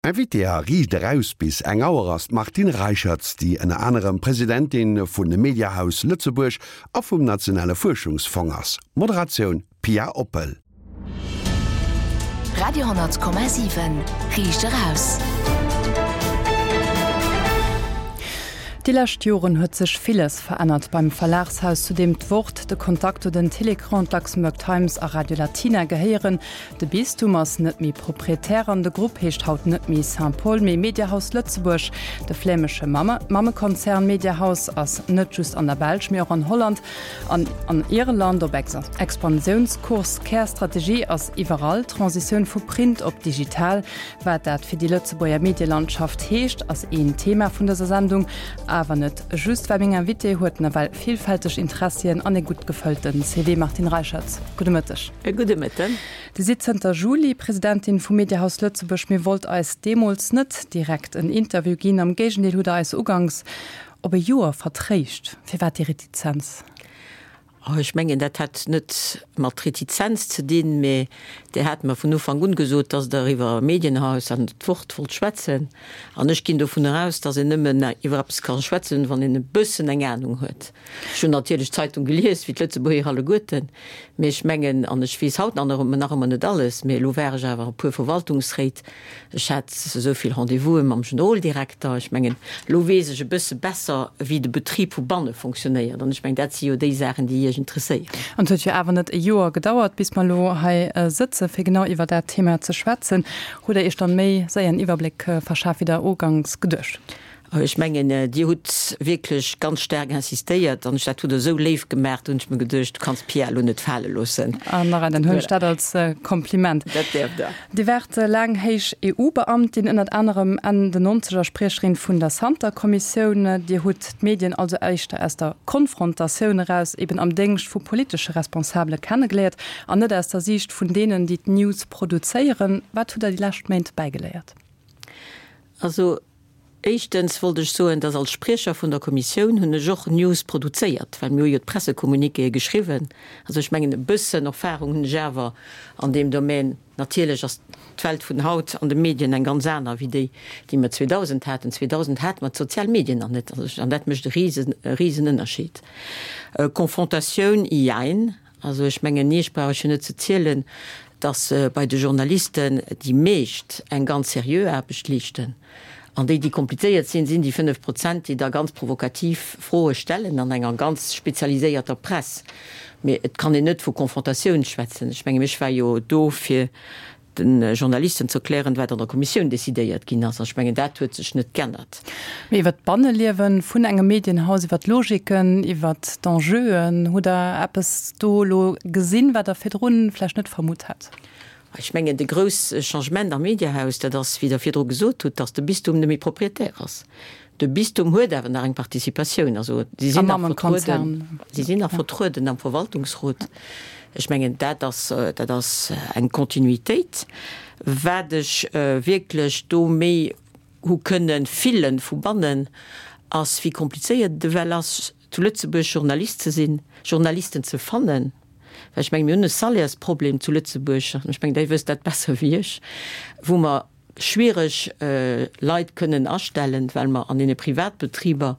Invitée a Riicht eraus bis eng Auer ass d'Martine Reicherts, déi ënner anerem Presidentin vun Mediahaus Lëtzebuerg a vum Nationale Fuerschungsfong ass. Moderatioun, Pia Oppel. Radio 10,7 Riicht eraus. Déi lescht Joren huet sech villes verännert beim Verlagshaus, zu deem d'Wort, de Contacto, den Télécran, d'Luxembourg Times a Radio Latina gehéieren. De Bistum ass net méi Proprietär an de Grupp heescht haut net méi Saint-Paul, mee Mediahaus Lëtzebuerg. De flämesche Mammekonzern Mediahaus ass net just an der Belsch, mee och an Holland an an Irland op Expansiounskurs. Kärstrategie ass iwwerall d'Transitioun vu Print op digital. Wat dat fir déi Lëtzebuerger Medielandschaft heescht, ass een Thema vun dëser Sendung. Awer net just, well meng Invitée huet nawell villfälteg Interessien an ee gutt gefëllte CV. Martine Reicherts, gudde Mëtteg. E gudde Mëtten. Dir sidd zënter Juli Presidentin vum Mediahaus Lëtzebuerg. Mir wollt eis deemools net direkt en Interview ginn. Am Géigendeel hutt Der eis uganks op e Joer vertréischt. Firwat déi Retizenz? Oh, ech mengen, dat hat net mat Retizenz ze dinn, mä Dir hat mer vun Ufank un gesot, dass Der iwwer Medienhaus an d'Wort wollt schwätzen. An ech ginn dovun eraus, dass een nëmmen iwwer eppes ka schwätzen, wann een e bëssen eng Anung huet. Ech hunn natierlech d'Zeitung gelies, wéi d'Lëtzebuerger alleguerten, mee ech mengen, an ech weess haut nach nach ëmmer net alles, mee elo war ech awer e puer Verwaltungsréit, ech hat esou vill Rendez-vouse mam Generoldirekter, ech mengen, elo weess ech e bësse besser, wéi de Betrib vu banne fonctionnéiert. An ech mengen, dat si jo déi Saachen, déi Iech interesséieren. An et huet jo awer net e Joer gedauert, bis mer elo hei sëtzen, fir genau iwwer dat Thema ze schwätzen. Hutt Der Iech dann méi séier en Iwwerbléck verschaf, wéi Der uganks geduecht hutt? Ech mengen, Dir hutt wierklech ganz staark insistéiert an dat hutt Der esou léif gemaach, do hunn ech mir geduecht, du kanns d'Pia elo net fale loossen. An nach dann huelen ech dat als Kompliment. Dat däerft Der. Dir waart laang héich EU-Beamtin, ënnert anerem Enn den Nonzeger Spriecherin vun der Santer-Kommissioun. Dir hutt d'Medien also éischter aus der Konfrontatioun eraus, eben am Déngscht vu politesche Responsabele kennegeléiert an net aus der Siicht vun deenen, déi d'News produzéieren. Wat hutt Der déi lescht Méint bäigeléiert? Also Éischtens wollt ech soen, dass als Spriecher vun der Kommissioun hunn ech och News produzéiert, well mir hu jo d'Pressecommuniquéë geschriwwen. Also ech mengen, e bëssen Erfahrung hunn ech awer an deem Domän. Natierlech ass d'Welt vun haut an de Medien eng ganz aner wéi déi, déi mer 2000 haten. 2000 hate mer d'sozial Medien nach net, an dat mécht e risen, e risen Ënnerscheed. Confrontatioun, jein. Also ech mengen, Iech brauch ech jo net ze zielen, datt bei de Journalisten déi meescht eng ganz seriö Aarbecht leeschten. An déi, déi komplizéiert sinn, sinn déi 5 Prozent, déi da ganz provokativ Froe stellen an enger ganz spezialiséierter Press. Mee et kann een net vu Confrontatioun schwätzen. Ech mengen, ech war jo do fir de Journalisten ze erklären, wat an der Kommissioun decidéiert ginn ass. An ech mengen, dat huet sech net g'ännert. Mee iwwer d'Banneliewe vun engem Medienhaus, iwwer d'Logiken, iwwer d'Enjeuen, hutt Der eppes do elo gesinn, wat Der virdru vläicht net vermutt hätt? Ech mengen, de grouss Changement am Mediahaus, dat ass, wéi Der virdru gesot hutt, datt de Bistum net méi Propriétaire ass. De Bistum huet awer nach eng Participatioun, also si sinn nach vertrueden, si sinn nach vertrueden am Verwaltungsrot. Ech mengen, dat ass, dat ass eng Kontinuitéit. Wat ech wierklech do méi hu kënne fillen vu bannen, ass wéi komplizéiert et ewell ass, zu Lëtzebuerg Journalist ze sinn, Journalisten ze fannen. Well ech mengen, mir hunn e Salairesproblem zu Lëtzebuerg, ech mengen, Dir wësst dat besser wéi ech, wou mer schwiereg Leit kënnen astellen, well mer an deene Privatbetriber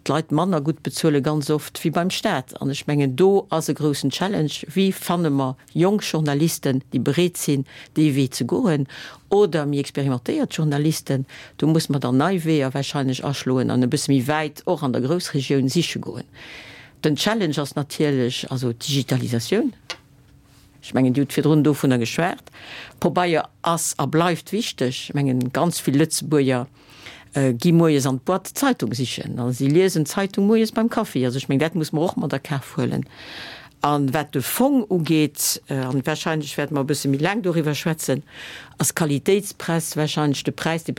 d'Leit manner gutt bezuele ganz oft wéi beim Staat. An ech mengen, do ass e groussen Challenge, Wéi fanne mer jonk Journalisten, déi bereet sinn, dee Wee ze goen, oder méi experimentéiert Journalisten? Do muss mer dann nei Weeër wahrscheinlech aschloen an e bësse méi wäit och an der Groussregioun siche goen. Den Challenge ass natierlech also d'Digitalisatioun. Ech mengen, Dir hutt virdrun dovunner geschwat. Pobeier ass a bleift wichteg. Ech mengen, ganz vill Lëtzebuerger gi moies an d'Boîte d'Zeitung sichen a si liesen d'Zeitung moies beim Kaffi. Also ech mengen, dat muss mer och mat a Kaf huelen. A wat de Fong ugeet, a wahrscheinlech wäerte mer e bësse méi laang doriwwer schwätzen, ass Qualitéitspress wahrscheinlech de Präis, dee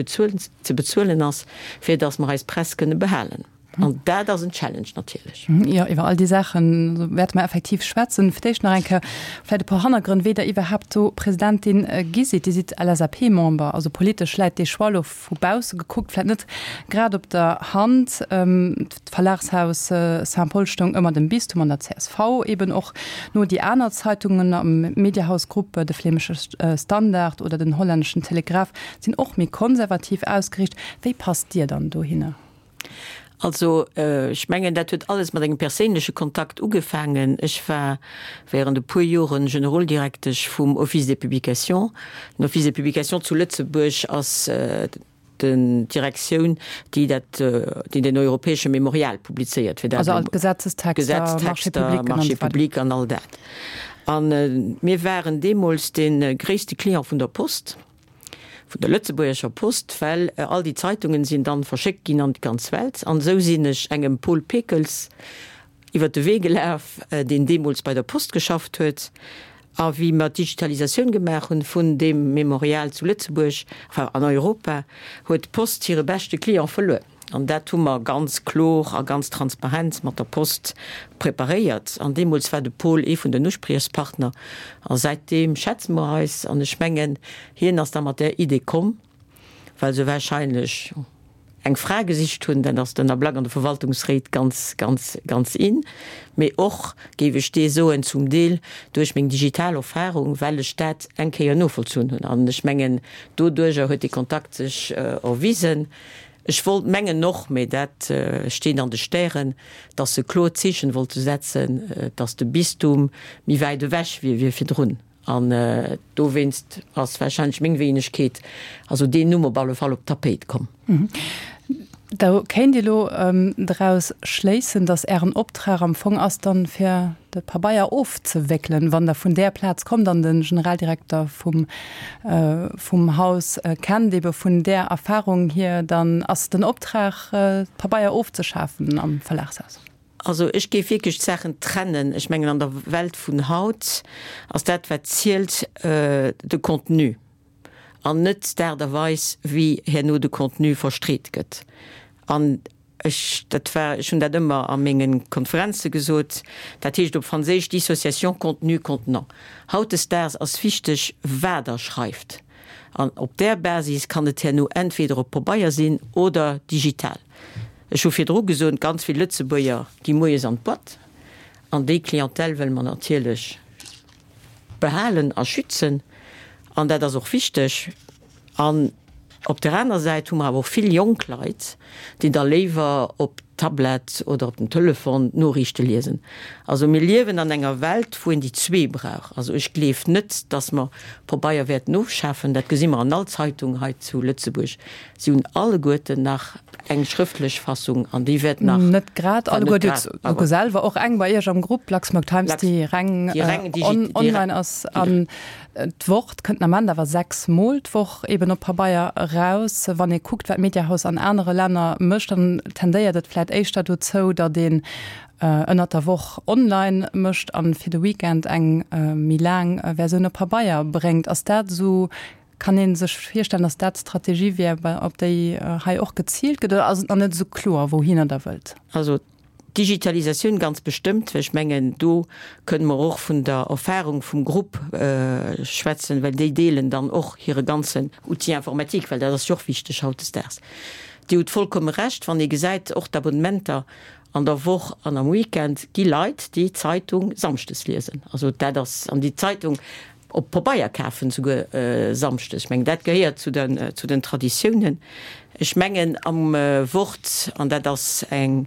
ze bezuelen ass, fir datt mer eis Press kënne behalen. An dat ass en Challenge natierlech. Jo, iwwer all déi Saache wäerte mer effektiv schwätzen. Fir d'éischt nach eng Kéier vläicht e puer Hannergrënn, wéi Der iwwerhaapt do Presidentin gi sidd. Dir sidd LSAP-Member, also politesch läit dee Choix elo vu bausse gekuckt vläicht net grad op der Hand. D'Verlagshaus Saint-Paul stoung ëmmer dem Bistum an der csv eben och no. Déi aner Zeitungen am Mediahaus-Grupp, de Flämesche Standard oder den hollänneschen Telegraaf, sinn och méi konservativ ausgeriicht. Wéi passt Dir dann dohinner? Also, ech mengen, dat huet alles mat engem perséinleche Kontakt ugefaangen. Ech war während e puer Joren Generoldirektesch vum Office des Publications. Den Office des Publications zu Lëtzebuerg ass den d'Direktioun, déi dat, déi den europäesche Memorial publizéiert, fir dat Also all d'Gesetzestexter, Gesetztexter, Marchés publics an all dat. A mir waren deemools dee gréisste Client vun der Post. vun der Lëtzebuergescher Post, well all déi Zeitungen sinn dann verschéckt ginn an d'ganz Welt. An esou sinn ech engem Paul Pekels iwwer de Wee gelaf, deen deemools bei der Post geschafft huet. A wéi mer d'Digitalisatioun gemaach hunn vun deem Memorial zu Lëtzebuerg, enfin an Europa, huet d'Post hire beschte Client verluer. An dat hu mer ganz klor a ganz transparent mat der Post preparéiert. An deemools war de Paul ee vun den Uspriechspartner. A säitdeem schätze mer eis. An ech mengen, hien ass da mat där Idee komm, well se wahrscheinlech eng Fra gesicht hunn. Dat ass den Ablack an de Verwaltungsréit ganz, ganz, ganz in. Mee och, géif ech dee soen, zum Deel duerch meng digital Erfahrung, well ech dat eng Kéier novollzunn hunn. An ech mengen, doduerjer huet dee Kontakt sech erwisen. Ech wollt mengen och, mee dat steet an de Stären, dass se kloer Zeechen wollte setzen, dass de Bistum méi wäit ewech wier wéi virdrun. An dowéinst ass warscheinlech meng Wéinegkeet, also deen Numm op alle Fall op d'Tapéit komm. Da kéint ee lo draus schléissen, dass Ären Optrag am Fong ass dann, fir de Pabeier ofzewéckelen, wann Der vun där Plaz kommt an de Generaldirekter vum vum Haus kennt, ebe vun där Erfahrung hier, dann ass den Optrag, d'Pabeier ofzeschafen am Verlagshaus. Also ech géif wierklech d'Saachen trennen. Ech mengen, an der Welt vun haut ass dat, wat zielt, de Contenu an net d'Aart a Weis, wéi herno de Contenu verstreet gëtt. An Ech, dat war, ech hunn dat ëmmer a menge Konferenze gesot, dat heescht op Franséisch Dissociation contenu-contenant. Hautdesdaags ass wichteg, wat Der schreift. An op där Basis kann et herno entweder op Pabeier sinn oder digital. Ech hu virdru gesot, ganz vill Lëtzebuerger gi moies an d'Boîte an déi Clientèle wëlle mer natierlech behalen a schützen an dat ass och wichteg. An op der aner Säit hu mer awer och vill jonk Leit, déi da léiwer op Tablett oder op den Telefon d'Noriichte liesen. Also mir liewen an enger Welt, wou een déi zwee brauch. Also ech gleef net, datt mer Pabeier wäerten ofschafen. Dat gesi mer an all Zeitung hei zu Lëtzebuerg. Si hunn alleguerten nach eng schrëftlech Fassung an déi wäert nach. Net grad alleguer. Dir hutt souguer selwer och eng bei Iech am Grupp, Luxembourg Times, déi reng online ass. An d'Wort kënnt den Ament awer 6 Mol d'Woch eben op Pabeier eraus. Wann ee kuckt, wat d'Mediahaus an anere Länner mécht, dann tendéiert et vläicht éischter dozou, datt een ënnert der Woch online mécht an fir de Weekend eng méi laang Versioun op Pabeier bréngt. Ass dat esou, kann ee sech virstellen, datt dat d'Strategie wier, op déi hei och geziilt gëtt, oder ass et nach net esou kloer, wouhinner Der wëllt? Also D'Digitalisatioun ganz bestëmmt, well ech mengen, do kënne mer och vun der Erfahrung vum Grupp schwätzen, well déi deelen dann och hire ganzen Outil informatique, well dat ass jo och wichteg hautdesdaags. Dir hutt vollkomme Recht, wann ee gesäit, och d'Abonnementer an der Woch an am Weekend, gi Leit, déi d'Zeitung samschdes liesen. Also dat ass, an déi d'Zeitung op Pabeier kafen, souguer samschdes. Ech mengen, dat gehéiert zu den, zu den Traditiounen. Ech mengen, am Wort, an dat ass eng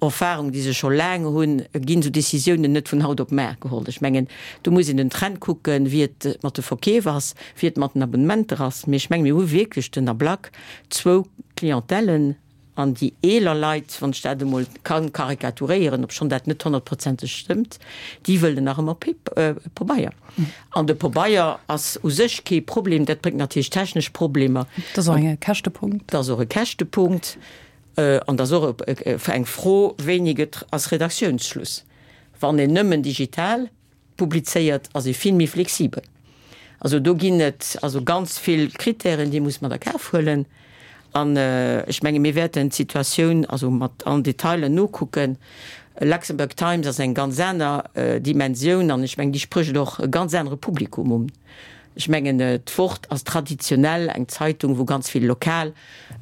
Erfahrung, déi se scho laang hunn, ginn esou Décisiounen net vun haut op mar geholl. Ech mengen, do muss een den Trend kucken, wéi et mat de Verkeef ass, wéi et mat den Abonnementer ass. Mee ech mengen, mir hu wierklech den Ablack zwou Clientèlen, An déi eeler Leit, wann ech dat emol ka karikaturéieren, obschonn dat net honnertprozenteg stëmmt, déi wëllen nach ëmmer Pabeier. An de Pabeier ass u sech kee Problem, dat bréngt natierlech technesch Problemer. Dat ass och e Käschtepunkt. Dat ass och e Käschtepunkt. An dat ass och eng Fro, wéini gëtt, ass Redaktiounsschluss? Wann een nëmmen digital Publizéiert, ass ee vill méi flexibel. Also do ginn et also ganz vill Kritären, déi muss mat a Kaf huelen. An ech menge mir wäerten d'Situatioun also mat allen Detailen nokucken. Luxembourg Times ass eng ganz aner Dimensioun an ech mengen déi sprécht och e ganz anere Publikum un. Ech mengen d'Wort ass traditionell eng Zeitung wou ganz vill lokal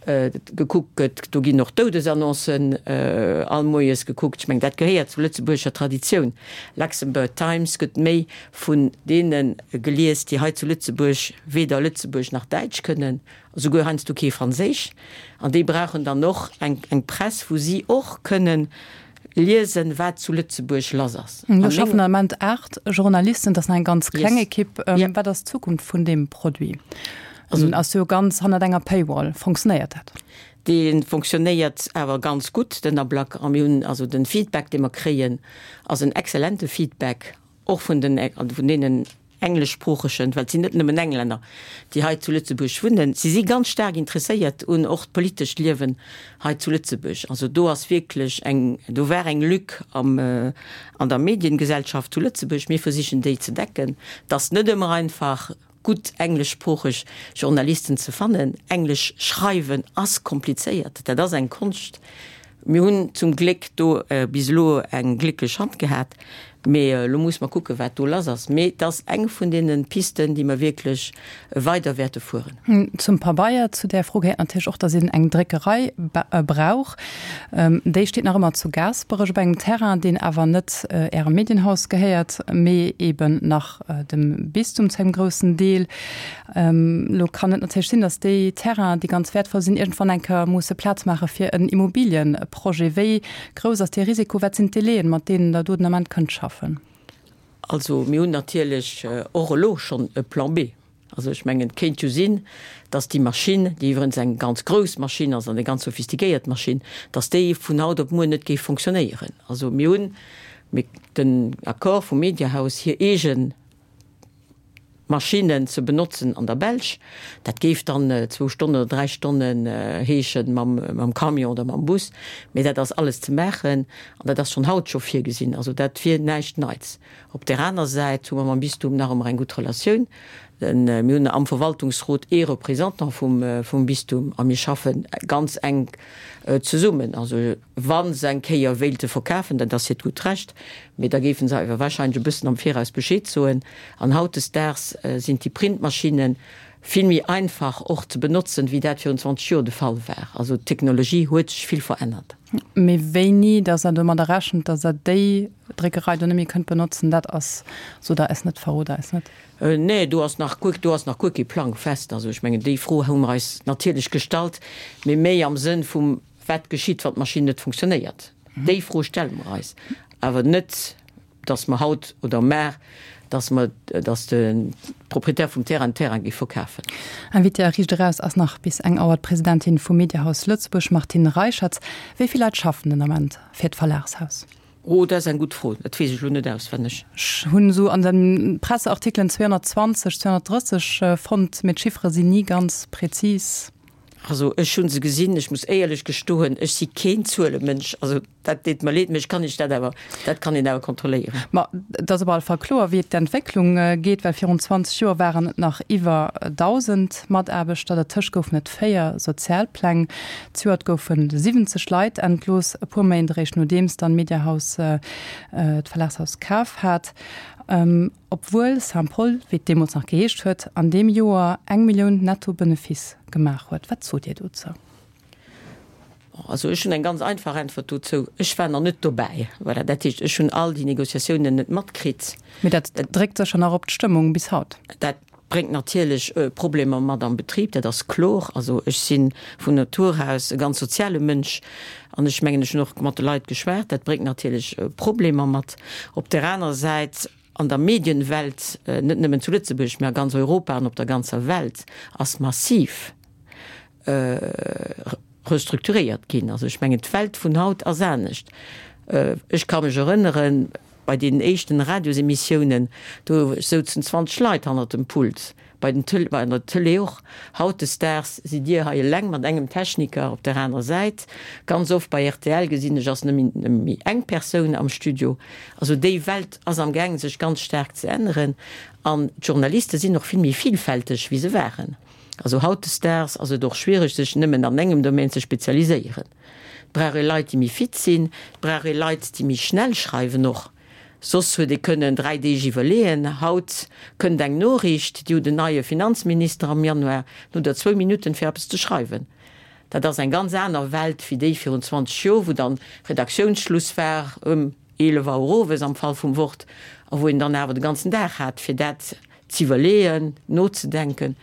gekuckt gëtt. Do ginn och Doudesannoncen all moies gekuckt. Ech mengen dat gehéiert zur lëtzebuergescher Traditioun. Luxembourg Times gëtt méi vun deene gelies déi hei zu Lëtzebuerg weder Lëtzebuerg nach Däitsch kënnen. Esouguer heiansdo kee Franséisch. An déi brauchen dann och eng Press, wou si och kënnen liesen, wat zu Lëtzebuerg lass ass. Do schaffen am Ament 8 Journalisten, dat ass nach eng ganz kleng Ekipp. Wat ass d'Zukunft vun deem Produit? En ass jo ganz hannert enger Paywall. Fonctionnéiert dat? Dee fonctionnéiert awer ganz gutt, den Ablack. A mir hunn also de Feedback, dee mer kréien, ass en exzellente Feedback. Och vun den, vun deenen engleschsproochegen, well et sinn net nëmmen Englänner, déi hei zu Lëtzebuerg wunnen. Si si ganz staark interesséiert un och d'politescht Liewen hei zu Lëtzebuerg. Also do ass wierklech eng, do war eng Lück am, an der Mediengesellschaft zu Lëtzebuerg. Mir versichen déi ze decken. Et ass net ëmmer einfach. Gutt engleschsproocheg Journalisten ze fannen. Englesch schreiwen ass komplizéiert, dat ass eng Konscht. Mir hunn zum Gléck do bis elo eng glécklech Hand gehat, mee elo muss mer kucken, wat do lass ass. Mee et ass eng vun deene Pisten, déi mer wierklech weider wäerte fueren. Zum Pabeier, zu där Fro gehéiert natierlech och, datt een eng Dréckerei brauch. Déi steet nach ëmmer zu Gaasperech op engem Terrain, deen awer net Ärem Medienhaus gehéiert, mee eben nach dem Bistum zu engem groussen Deel. Elo kann et natierlech sinn, datt déi Terrainen, déi ganz wäertvoll sinn, iergendwann eng Kéier musse Plaz maache fir en Immobiliëprojet. Wéi grouss ass dee Risiko? Wat sinn d'Délaiën, mat deenen Der do den Ament kënnt schaffen? Also mir hunn natierlech och elo schonn e Plan B. Also ech mengen, et kéint jo sinn, datt déi Maschinn, déi iwwerens eng ganz grouss Maschinn ass an eng ganz sophistiquéiert Maschinn, datt déi vun haut op muer net géif fonctionnéieren. Also mir hunn den Accord vum Mediahaus, hir eege Maschinnen ze benotzen an der Belsch. Dat géif dann zwou Stonnen oder dräi Stonnen heeschen mam Camion oder mam Bus. Mee dat ass alles ze maachen an dat ass schonn haut scho virgesinn. Also dat wier näischt Neits. Op där aner Säit hu mer mam Bistum nach ëmmer eng gutt Relatioun. Mir hunn am Verwaltungsrot ee Représentant vum Bistum a mir schaffe ganz enk zesummen. Also wa se eng Kéier wéilte verkafen, dat ass hiert gutt Recht, mee da géife se awer warscheinlech e bëssen am Viraus Bescheed soen. An hautdesdaags sinn déi Printmaschinne vill méi einfach och ze benotzen, wéi dat virun 20 Joer de Fall war. Also d'Technologie huet sech vill verännert. Mee wéini dass Der domadder rechent, dass Der déi Dréckerei do net méi kënnt benotzen, dat ass, sot Der eis net, verrot Der eis net. Nee, do ass nach guer, do ass nach guer kee Plang fest. Also ech mengen, déi Fro hu mer eis natierlech gestallt, mee méi am Sënn vum, Wat geschitt, wann d'Maschinn net funktionéiert? Déi Fro stelle mer eis, awer net, dass mer haut oder mar, dass mer, dass de Proprietär vum Terrain den Terrain géif verkafen. Invitée a Riicht Eraus ass nach bis eng Auer d'Presidentin vum Mediahaus Lëtzebuerg, Martine Reicherts. Wéi vill Leit schaffen den Ament fir d'Verlagshaus? Oh, dat ass eng gutt Fro. Dat weess ech elo net auswenneg. Ech hunn esou an de Presseartikelen 220, 230 fonnt, mee d'Chiffere sinn ni ganz präzis. Also ech hu se gesinn. Ech muss éierlech gestoen, ech si keen Zuelemënsch. Also dat deet mer leed, mee ech kann Iech dat awer, dat kann een awer kontrolléieren. Ma et ass op alle Fall kloer, wéi d'Entwécklung geet, well virun 20 Joer waren et nach iwwer 1.000 Mataarbechter. Dertëscht goufen et 4 Sozialpläng. Zejoert goufe 70 Leit entlooss, e puer Méint eréischt nodeems dann d'Mediahaus d'Verlagshaus kaf hat. Obwuel Saint-Paul, wéi et deemools nach geheescht huet, an deem Joer eng Millioun netto Benefice gemaach huet. Wat sot Dir dozou? Also ech hunn eng ganz einfach Äntwert dozou, Ech war nach net dobäi. Voilà, dat heescht, ech hunn all déi Négociatiounen net matkritt. Mee dat dréckt sécher nach op d'Stëmmung bis haut. Dat bréngt natierlech Problemer mat am Betrib, dat ass kloer. Also ech si vun Natur aus e ganz soziale Mënsch an ech mengen, ech hunn och mat de Leit geschwat, dat bréngt natierlech Problemer mat. Op där anerer Säit, an der Medienwelt, net nëmmen zu Lëtzebuerg, mä a ganz Europa an op der ganzer Welt, ass massiv restrukturéiert ginn. Also ech mengen, d'Welt vun haut ass anescht. Ech ka mech erënneren, bei deenen éischten Radiosemissiounen, do souzen 20 Leit hannert dem Pult, bei den Tël, bei der Tëlee och. Hautdesdaags sidd Dir hei eleng mat engem Techniker op der anerer Säit. Ganz oft bei rtl gesinn ech, ass nëmme méi eng Persoun am Studio. Also déi Welt ass am gaangen sech ganz staark ze änneren an d'Journaliste sinn och vill méi vielfälteg wéi se waren. Also hautdesdaags ass et och schwiereg, sech nëmmen an engem Domaine ze spezialiséieren. Et brauch ee Leit, déi méi fit sinn, et brauch ee Leit, déi méi schnell schreiwen och. Soss huet ee kënnen 3 Deeg iwwerleeën. Haut kënnt eng Noriicht, Dir hutt en neie Finanzminister am Januar, dann hutt Der zwou Minutten, fir eppes ze schreiwen. Dat ass eng ganz aner Welt wéi déi virun 20 Joer, wou dann Redaktiounsschluss war ëm 11 Auer owes am Fall vum Wort a wou een dann awer de ganzen Dag hat, fir dat z'iwwerleeën, nozedenken.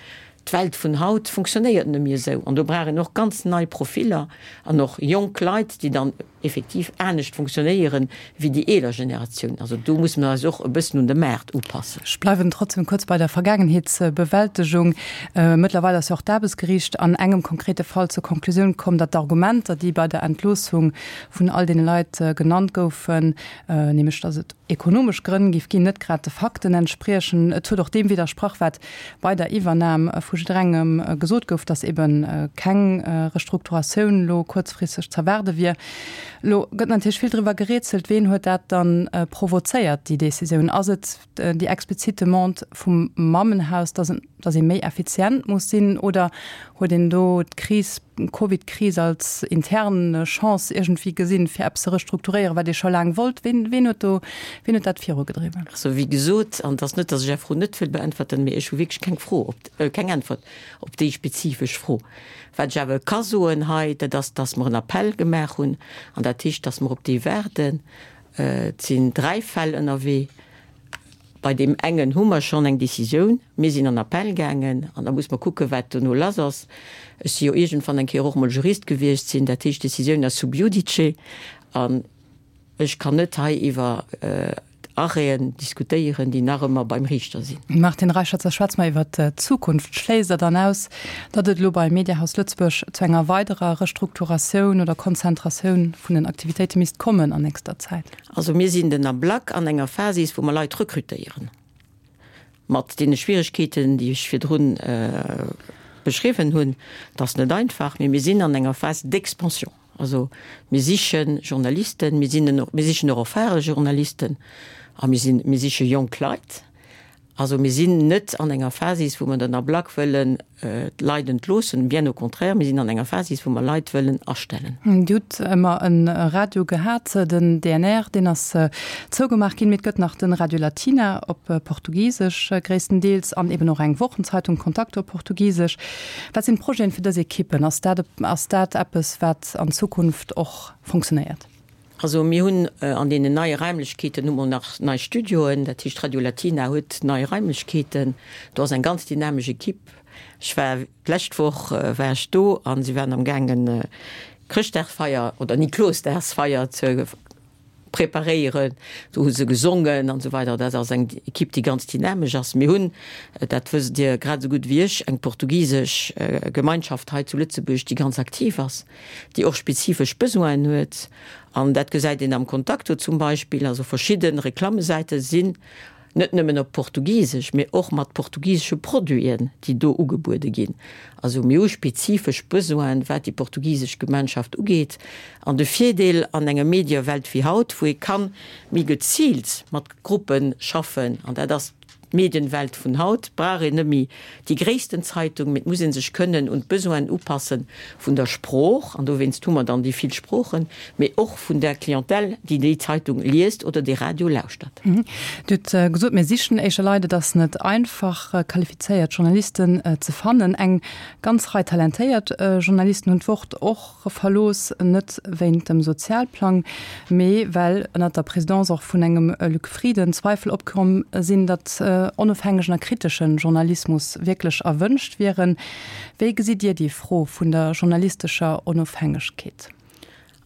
D'Welt vun haut funktionéiert net méi esou an do brauch een och ganz nei Profiller an och jonk Leit, déi dann effektiv anescht funktionéieren wéi déi eeler Generatioun. Also do musse mer eis och e bëssen un de Maart upassen. Ech bleiwen trotzdem kuerz bei der Vergaangenheetsbewältegung. Mëttlerweil ass jo och d'Aarbechtsgeriicht an engem konkrete Fall zur Konklusioun komm, datt d'Argumenter, déi bei der Entloossung vun all deene Leit genannt goufen, nämlech datt et ekonomesch Grënn géif ginn, net grad de Fakten entspriechen. Et huet och deem widdersprach, wat bei der Iwwernam vu jidderengem gesot gouf, datt ebe keng Restrukturatioun elo kuerzfristeg z'erwaarde wier. Elo gëtt natierlech vill driwwer gerätselt, Ween huet dat dann provozéiert, déi Decisioun? Ass et déi explizit Demande vum Mammenhaus, datt datt ee méi effizient muss sinn, oder huet een do d'Kris, d'Covid-Kris als intern Chance iergendwéi gesinn, fir eppes ze restrukturéieren, wat ee scho laang wollt? Ween, ween huet do, ween huet dat virugedriwwen? Also, wéi gesot, an et ass net, datt ech Är Fro net wëll beäntwerten, mee ech hu wierklech keng Fro op, keng Äntwert op déi spezifesch Fro. Wat ech awer ka soen hei, dat ass, datt mer en Appell gemaach hunn, an dat heescht, datt mer op dee waarden. Et sinn 3 Fäll ënnerwee. Bei deem engen hu mer schonn eng Décisioun. Mir sinn an Appell gaangen an da muss mer kucken, wat dono lass ass. Ech si jo iergendwann eng Kéier och mol Jurist gewiescht sinn. Dat heescht, d'Décisioun ass sub judice an ech kann net hei iwwer Arrêten diskutéieren, déi nach ëmmer beim Riichter sinn. Martine Reicherzer, schwätze mer iwwer d'Zukunft. Schléisst Der dann aus, datt et elo bei Mediahaus Lëtzebuerg zu enger weiderer Restrukturatioun oder Konzentratioun vun den Aktivitéite misst kommen an nächster Zäit? Also mir sinn den Ablack an enger Phasis, wou mer Leit rekrutéieren, mat deene Schwierigkeeten, déi ech virdrun beschriwwen hunn. Dat ass net einfach, mee mir sinn an enger Phase d'expansion. Also mir siche Journalisten, mir sinn, mir sichen och erfahre Journalisten a mir sinn, mir siche jonk Leit. Also mir sinn net an enger Phasis, wou mer den Ablack wëllen d'Leit entloossen, bien au contraire, mir sinn an enger Phasis, wou mer Leit wëllen astellen. Dir hutt ëmmer e Radio gehat, den DNR, deen ass zougemaach ginn, mee et gëtt nach de Radio Latina op Portugisesch gréisstendeels an eben och eng Wochenzeitung Contacto op Portugisesch. Wat sinn d'Projeten fir dës Ekippen? Ass dat, ass dat eppes, wat an Zukunft och funktionéiert? Also mir hunn an deenen neie Raimlechkeeten hu mer nach nei Studioen, dat heescht Radio Latina huet nei Raimlechkeeten. Do ass eng ganz dynamesch Equipe. Ech war d'lescht Woch war ech do a si waren am gaangen Chrëschtdagsfeier oder Niklosdagsfeier ze preparéieren. Do hu se gesongen an esou weider. Dat ass eng Equipe, déi ganz dynamesch ass. Mir hunn, dat wësst Dir grad esou gutt wéi ech, eng portugisesch Gemeinschaft hei zu Lëtzebuerg, déi ganz aktiv ass. déi och spezifesch Besoinen huet, an dat gesäit een am Contacto zum Beispill, also verschidde Reklammesäite sinn net nëmmen op Portugisesch, mee och mat portugisesche Produiten, déi do ugebuede ginn. Also mir hu spezifesch Besoinen, wat déi portugisesch Gemeinschaft ugeet. An de Virdeel an enger Mediewelt wéi haut, wou ee ka méi geziilt mat Gruppe schaffen, an dat ass D'Medienwelt vun haut brauch een net méi déi gréissten Zeitung, mee et muss ee sech kënnen un d'Besoinen upasse vun der Sprooch, an dowéinst hu mer dann déi vill Sproochen, mee och vun der Clientèle, déi déi Zeitung liest oder dee Radio lauschtert. Dir hutt gesot, mir sichen éischer Leit, et ass net einfach, qualifizéiert Journalisten ze fannen. Eng ganz Rei talentéiert Journalisten hunn d'Wort och Verlooss, net wéint dem Sozialplang, mee well ënnert der Présidence och vun engem Luc Frieden Zweifel opkomm sinn, datt onofhängegen a kritesche Journalismus wierklech erwënscht wieren. Wéi gesitt Dir déi Fro vun der journalistescher Onofhängegkeet?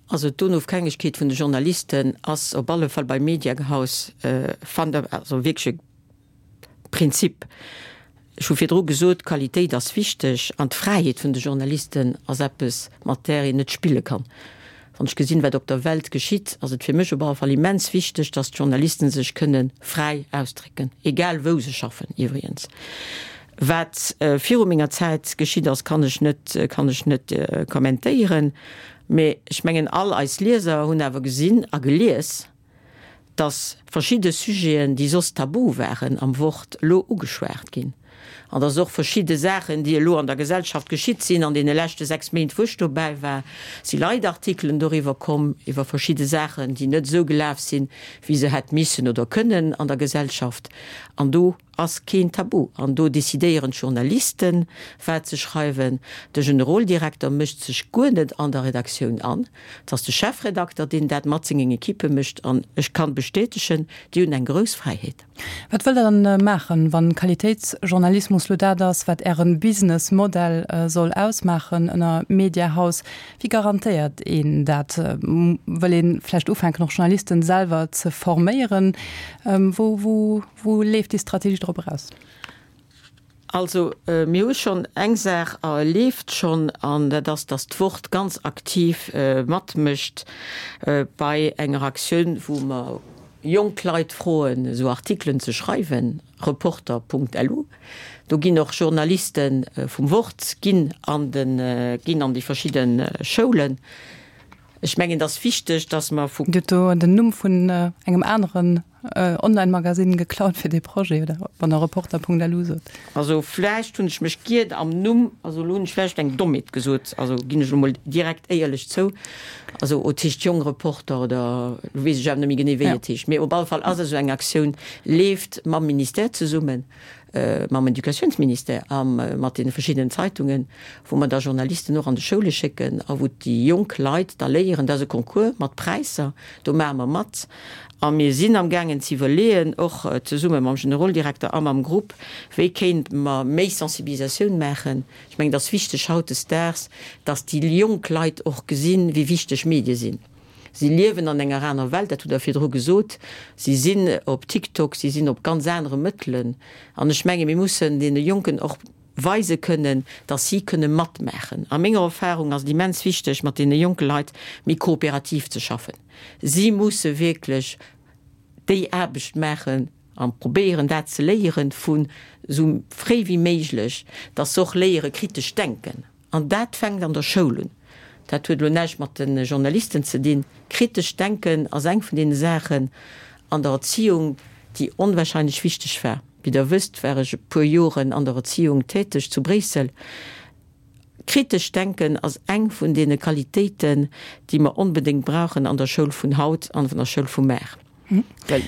Also d'Onofhängegkeet vun de Journalisten ass op alle Fall beim Mediahaus, also wierklech e Prinzip. Ech hu virdru gesot, d'Qualitéit ass wichteg an d'Fräiheet vun de Journalisten ass eppes, mat där een net spille kann. Wann ech gesinn, wat op der Welt geschitt, ass et fir mech op alle Fall immens wichteg, datt d'Journalisten sech kënne fräi ausdrécken, egal wou se schaffen iwwregens. Wat viru menger Zäit geschitt ass, kann ech net, kann ech net kommentéieren. Mee ech mengen, all eis Lieser hunn awer gesinn a gelies, dass verschidde Sujeten, déi soss tabu waren am Wort, elo ugeschwat ginn. An dass och verschidde Saachen, déi elo an der Gesellschaft geschitt sinn an deene leschte 6 Méint, wou ech dobäi war, si Leitartikelen doriwwer komm, iwwer verschidde Saachen, déi net esou gelaf sinn, wéi se hätt missen oder kënnen an der Gesellschaft. An do ass keen Tabu. An do decidéieren d'Journalisten, wat se schreiwen. De Generoldirekter mécht sech guer net an der Redaktioun an. Et ass de Chefredakter, deen dat mat sengen Ekippe mécht. An ech kann bestätegen, déi hunn eng grouss Fräiheet. Wat wëllt Der dann maachen, wann Qualitéitsjournalismus lo dat ass, wat Ären Businessmodell soll ausmaachen ënner Mediahaus? Wéi garantéiert een dat? Wëll een vläicht ufänken och Journalisten selwer ze forméieren? Wou, wou, wou leeft déi Strategie drop eraus? Also, mir hu schonn eng Saach leeft schonn, an dat ass, datt d'Wort ganz aktiv matmécht bei enger Aktioun, wou mer jonk Leit froen, esou Artikelen ze schreiwen, Reporter.lu. Do ginn och Journaliste vum Wort ginn an de, ginn an déi verschidde Schoulen. Ech mengen, et ass wichteg, datt mer vu. Dir hutt do den Numm vun engem aneren Online-Magasinn geklaut fir dee Projet, oder wann Der Reporter.lu sot? Also vläicht hunn ech mech giert am Numm, also elo hunn ech vläicht eng Dommheet gesot, also ginn ech elo mol direkt éierlech zou. Also et heescht Jong Reporter oder elo weess ech awer net méi genee wéi et heescht, mee op alle Fall ass esou eng Aktioun leeft mam Ministère zesummen. mam Educatiounsministère a mat deene verschiddenen Zeitungen, wou mer da Journalisten och an de Schoule schécken a wou déi jonk Leit da léieren. Dat ass e Concours mat Präisser, do maache mer mat a mir sinn amgaangen ze iwwerleeën, och zesumme mam Generoldirekter a mam Grupp, wéi kéinte mer méi Sensibilisatioun maachen. Ech mengen, et ass wichteg hautdesdaags, datt déi jonk Leit och gesinn, wéi wichteg Medie sinn. Si liewen an enger aner Welt, dat hutt Der virdru gesot. Si sinn op TikTok, si sinn op ganz anere Mëttelen. An ech menge mir mussen deene Jonken och weise kënnen, datt si kënne matmaachen. A menger Erfahrung ass et immens wichteg, mat deene jonke Leit méi kooperativ ze schaffen. Si musse wierklech déi Aarbecht maachen a probéieren dat ze léieren vu sou fréi wéi méiglech, datt se och léiere kritesch denken. An dat fänkt an der Schoul un. Dat huet elo näischt mat de Journalisten ze dinn. Kritescht Denken ass eng vun deene Saachen an der Erziehung, déi onwahrscheinlech wichteg war. Wéi Der wësst, war ech e puer Joren an der Erziehung täteg zu Bréissel. Kritescht Denken ass eng vun deene Qualitéiten, déi mer onbedéngt brauchen an der Schoul vun haut an an der Schoul vu mar. Well.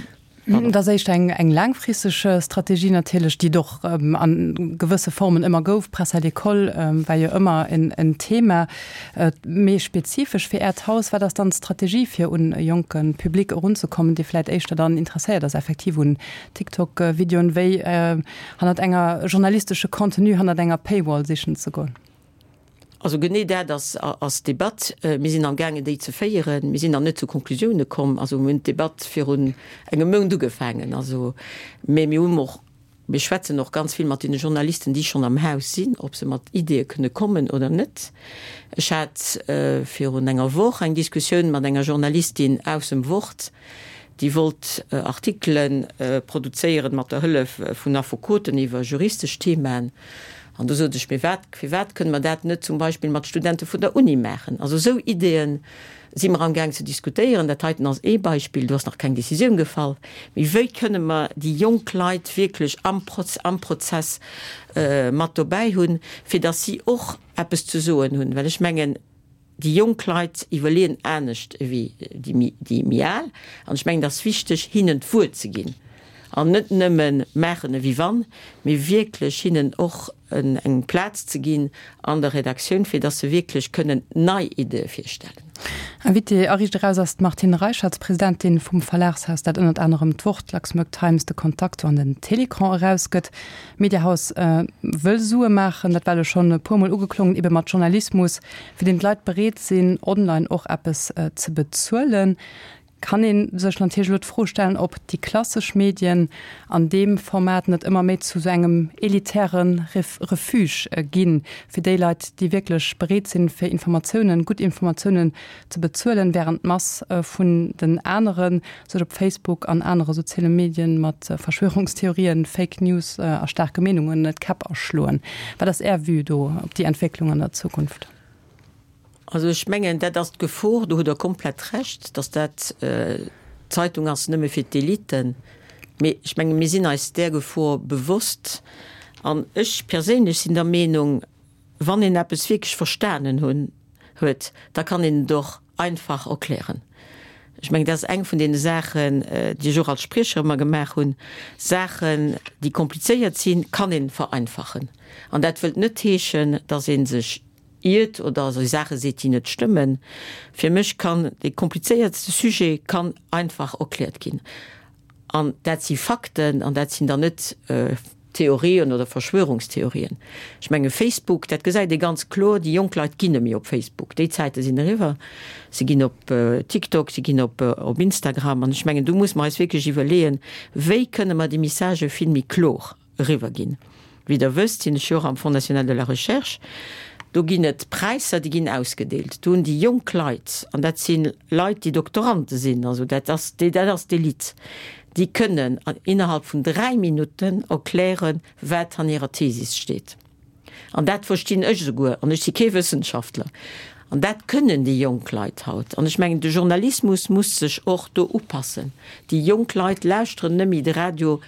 Dat ass éischter eng, eng laangfristeg Strategie natierlech, déi et och a gewësse Formen ëmmer gouf. Presse à l'école war jo ëmmer en, en Thema. Méi spezifesch fir Äert Haus, wat ass dann d'Strategie, fir un e jonke Public erunzekommen, dee vläicht éischter dann interesséiert ass effektiv un TikTok-Videoen, wéi hannert enger journalistesche Contenu, hannert enger Paywall sichen ze goen? Also genee dat ass ass d'Debatt. Mir sinn amgaangen déi ze féieren. Mir sinn nach net zu Konklusioune komm. Also mir hunn d'Debatt virun engem Mount ugefaangen. Also, mä mir hunn och, mir schwätzen och ganz vill mat deene Journalisten, déi schonn am Haus sinn, ob se mat Ideeë kënne kommen oder net. Ech hat virun enger Woch eng Diskussioun mat enger Journalistin aus dem Wort, déi wollt Artikele produzéieren mat der Hëllef vun Affekoten iwwer juristesch Themaen. An do sot ech, Mee wat, firwat kënne mer dat net zum Beispill mat Studente vun der Uni maachen? Also esou Ideeë si mer amgaang ze diskutéieren. Dat heiten ass ee Beispill, do ass nach keng Décisioun gefall. Mee wéi kënne mer déi jonk Leit wierklech am am Prozess mat dobäi hunn, fir datt si och eppes ze soen hunn? Well ech mengen, Déi jonk Leit iwwerleeën anescht ewéi déi méi al. An ech mengen, et ass wichteg, hinnen d'Wuert ze ginn an net nëmme maachen ewéi wann, mee wierklech hinnen och eng Plaz ze ginn an der Redaktioun, fir datt se wierklech kënnen nei Ideeë virstellen. Invitée a Riicht Eraus ass d'Martine Reicherts, Presidentin vum Verlagshaus, dat ënnert anerem d'Wort, d'Luxembourg Times, de Contacto an den Télécran erausgëtt. D'Mediahaus wëll Sue maachen, dat war elo schonn e puer Mol ugeklongen, ebe mat Journalismus, fir deen d'Leit bereet sinn, online och eppes ze bezuelen. Kann ee sech natierlech elo d'Fro stellen, ob déi klassesch Medien an deem Format net ëmmer méi zu esou engem elitäre Refuge ginn, fir déi Leit, déi wierklech bereet sinn, fir Informatiounen, gutt Informatiounen ze bezuelen, wärend d'Mass vun den anere sech op Facebook an anere soziale Medien mat Verschwörungstheorien, Fake News a staarke Meenungen d'Käpp aschloen. Wat ass Är Vue do op déi Entwécklung an der Zukunft? Also ech mengen, dat ass d'Gefor, do hutt Der komplett Recht, datt dat d'Zeitung ass nëmme fir d'Eliten. Mee ech menge mir sinn eis där Gefor bewosst. An ech perséinlech sinn der Meenung, wann een eppes wierklech verstanen hunn, huet, da kann een et och einfach erklären. Ech mengen, dat ass eng vun deene Saachen, déi ech och als Spriecher ëmmer gemaach hunn, Saachen, déi komplizéiert sinn, kann ee vereinfachen. An dat wëllt net heeschen, datt ee sech iert oder Saache seet, déi net stëmmen. Fir mech kann dee komplizéiertste Sujet kann einfach erkläert ginn. An dat si Fakten an dat sinn dann net Theorien oder Verschwörungstheorien. Ech menge Facebook, dat gesäit ee ganz kloer, déi jonk Leit ginn net méi op Facebook. Déi Zäite sinn eriwwer. Se ginn op TikTok, se ginn op op Instagram. An ech mengen, do muss mer eis wierklech iwwerleeën, wéi kënne mer déi Messagë vill méi kloer eriwwer ginn. Wéi Der wësst, sinn ech jo och am Fonds national de la recherche. Do ginn et Präisser, déi ginn ausgedeelt. Do hunn déi jonk Leit, an dat si Leit, déi Doktorante sinn, also dat ass, dat ass d'Elite, déi kënnen innerhalb vun 3 Minutten erklären, wat an hirer Thesis steet. An dat verstinn ech esouguer, an ech si kee Wëssenschaftler. An dat kënnen déi jonk Leit haut. An ech mengen, de Journalismus muss sech och do upassen. Déi jonk Leit lauschteren net méi de Radio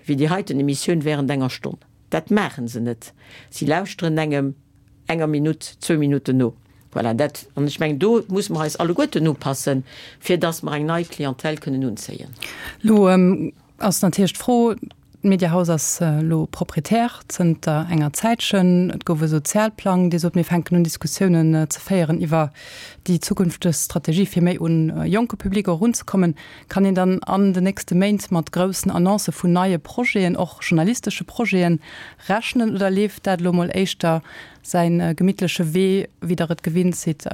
wéi déi heiten Emissioun während enger Stonn. Dat maachen se net. Si lauschteren engem enger Minutt, zwou Minutten no. Voilà, dat, an ech mengen, do musse mer eis alleguerten upassen, fir dass mer eng nei Clientèle kënnen unzéien. Elo ass natierlech d'Fro, D'Mediahaus ass elo Proprietär zënter enger Zäitchen. Et gouf e Sozialplang, dee sot, mir fänken un Diskussiounen ze féieren iwwer déi zukünfteg Strategie, fir méi un e jonke Public och erunzekommen. Kann een dann an den nächste Méint mat groussen Annoncë vun neie Projeten, och journalistesche Projeten, rechnen oder leeft dat elo mol éischter säi gemittleche Wee, wéi Der et gewinnt sidd,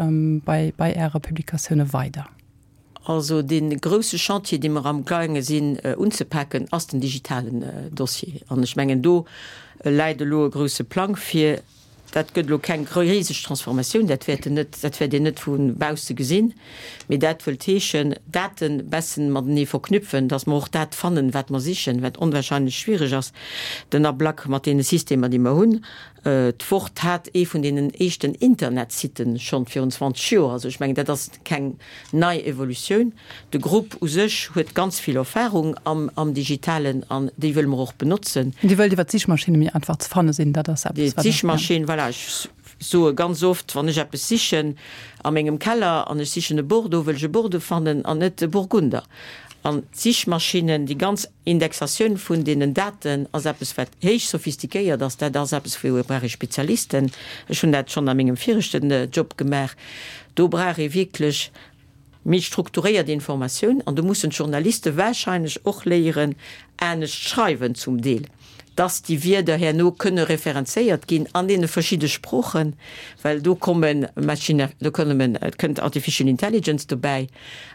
bei bei Äre Publikatioune weider? Also dee grousse Chantier, dee mer amgaange sinn unzepaken, ass den digitalen Dossier. An ech mengen, do läit elo e grousse Plang vir. Dat gëtt elo keng riseg Transformatioun, dat wäert en net, dat wäert een net vu bausse gesinn, mee dat wëllt heeschen, Daten bessen matenee verknüpfen, dass mer och dat fannen, wat mer sichen, wat onwahrscheinlech schwierig ass, den Ablack mat deene Systemer, déi mer hunn. D'Wort hat ee vun deenen éischten Internetsitten schonn virun 20 Joer. Also ech mengen, dat ass keng nei Evolutioun. De Grupp u sech huet ganz vill Erfahrung am Digitalen an déi wëlle mer och benotzen. Dir wëllt iwwer d'Sichmaschinne méi einfach ze fanne sinn, dat ass eppes, wat. D'Sichmaschinn, voilà, ech soe ganz oft, wann ech eppes sichen a mengem Keller an ech sichen e Bordeaux, wëll ech e Bordeaux fannen an net e Burgunder. An d'Sichmaschinnen, déi ganz Indexatioun vun deenen Daten ass eppes, wat héich sophistiquéiert ass. Dat ass eppes, wou brauch ee Spezialisten. Ech hunn dat schonn a mengem viregten Job gemaach. Do brauch ee wierklech méi strukturéiert Informatioun an do mussen d'Journaliste wahrscheinlech och léieren anescht schreiwen zum Deel, dass déi Wierder herno kënne referenzéiert ginn an deene verschidde Sproochen, well do komme Machine, do kommen, et kënnt Artificial Intelligence dobäi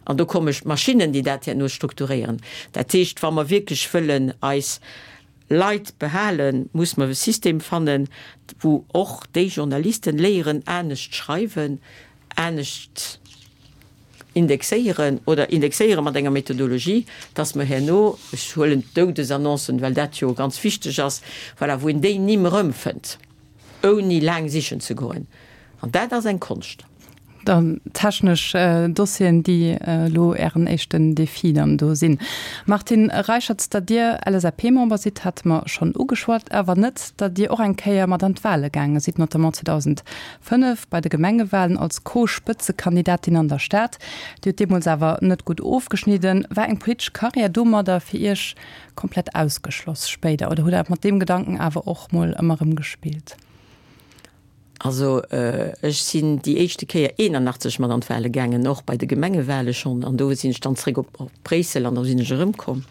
an do komme Maschinnen, déi dat herno strukturéieren. Dat heescht, wa mer wierklech wëllen eis Leit behalen, muss mer e System fannen, wou och déi Journalisten léieren anescht schreiwen, anescht indexéieren oder indexéiere mat enger Methodologie, dass mer herno, ech huelen d'Doudesannoncen, well dat jo ganz wichteg ass, voilà, wou een déi Nimm erëmfënnt, ouni laang sichen ze goen. An dat ass eng Konscht. Dann technesch Dossieren, déi elo Ären éischten Defi dann do sinn. Martine Reicherts, datt Dir LSAP-Member sidd, hate mer schonn ugeschwat, awer net, datt Dir och eng Kéier mat an d'Wale gaange sidd, notamment 2005 bei de Gemengewalen als Co-Spëtzekandidatin an der Stad. Dir hutt deemools awer net gutt ofgeschnidden. War eng politesch Karriär domadder fir Iech komplett ausgeschloss spéider oder hutt Der mat deem Gedanken awer och mol ëmmer erëm gespillt? Also ech sinn déi éischte Kéier 81 mat an d'Wale gaangen, och bei de Gemengewale schonn, an do sinn ech dann zréck op Bréissel an da sinn ech erëmkomm.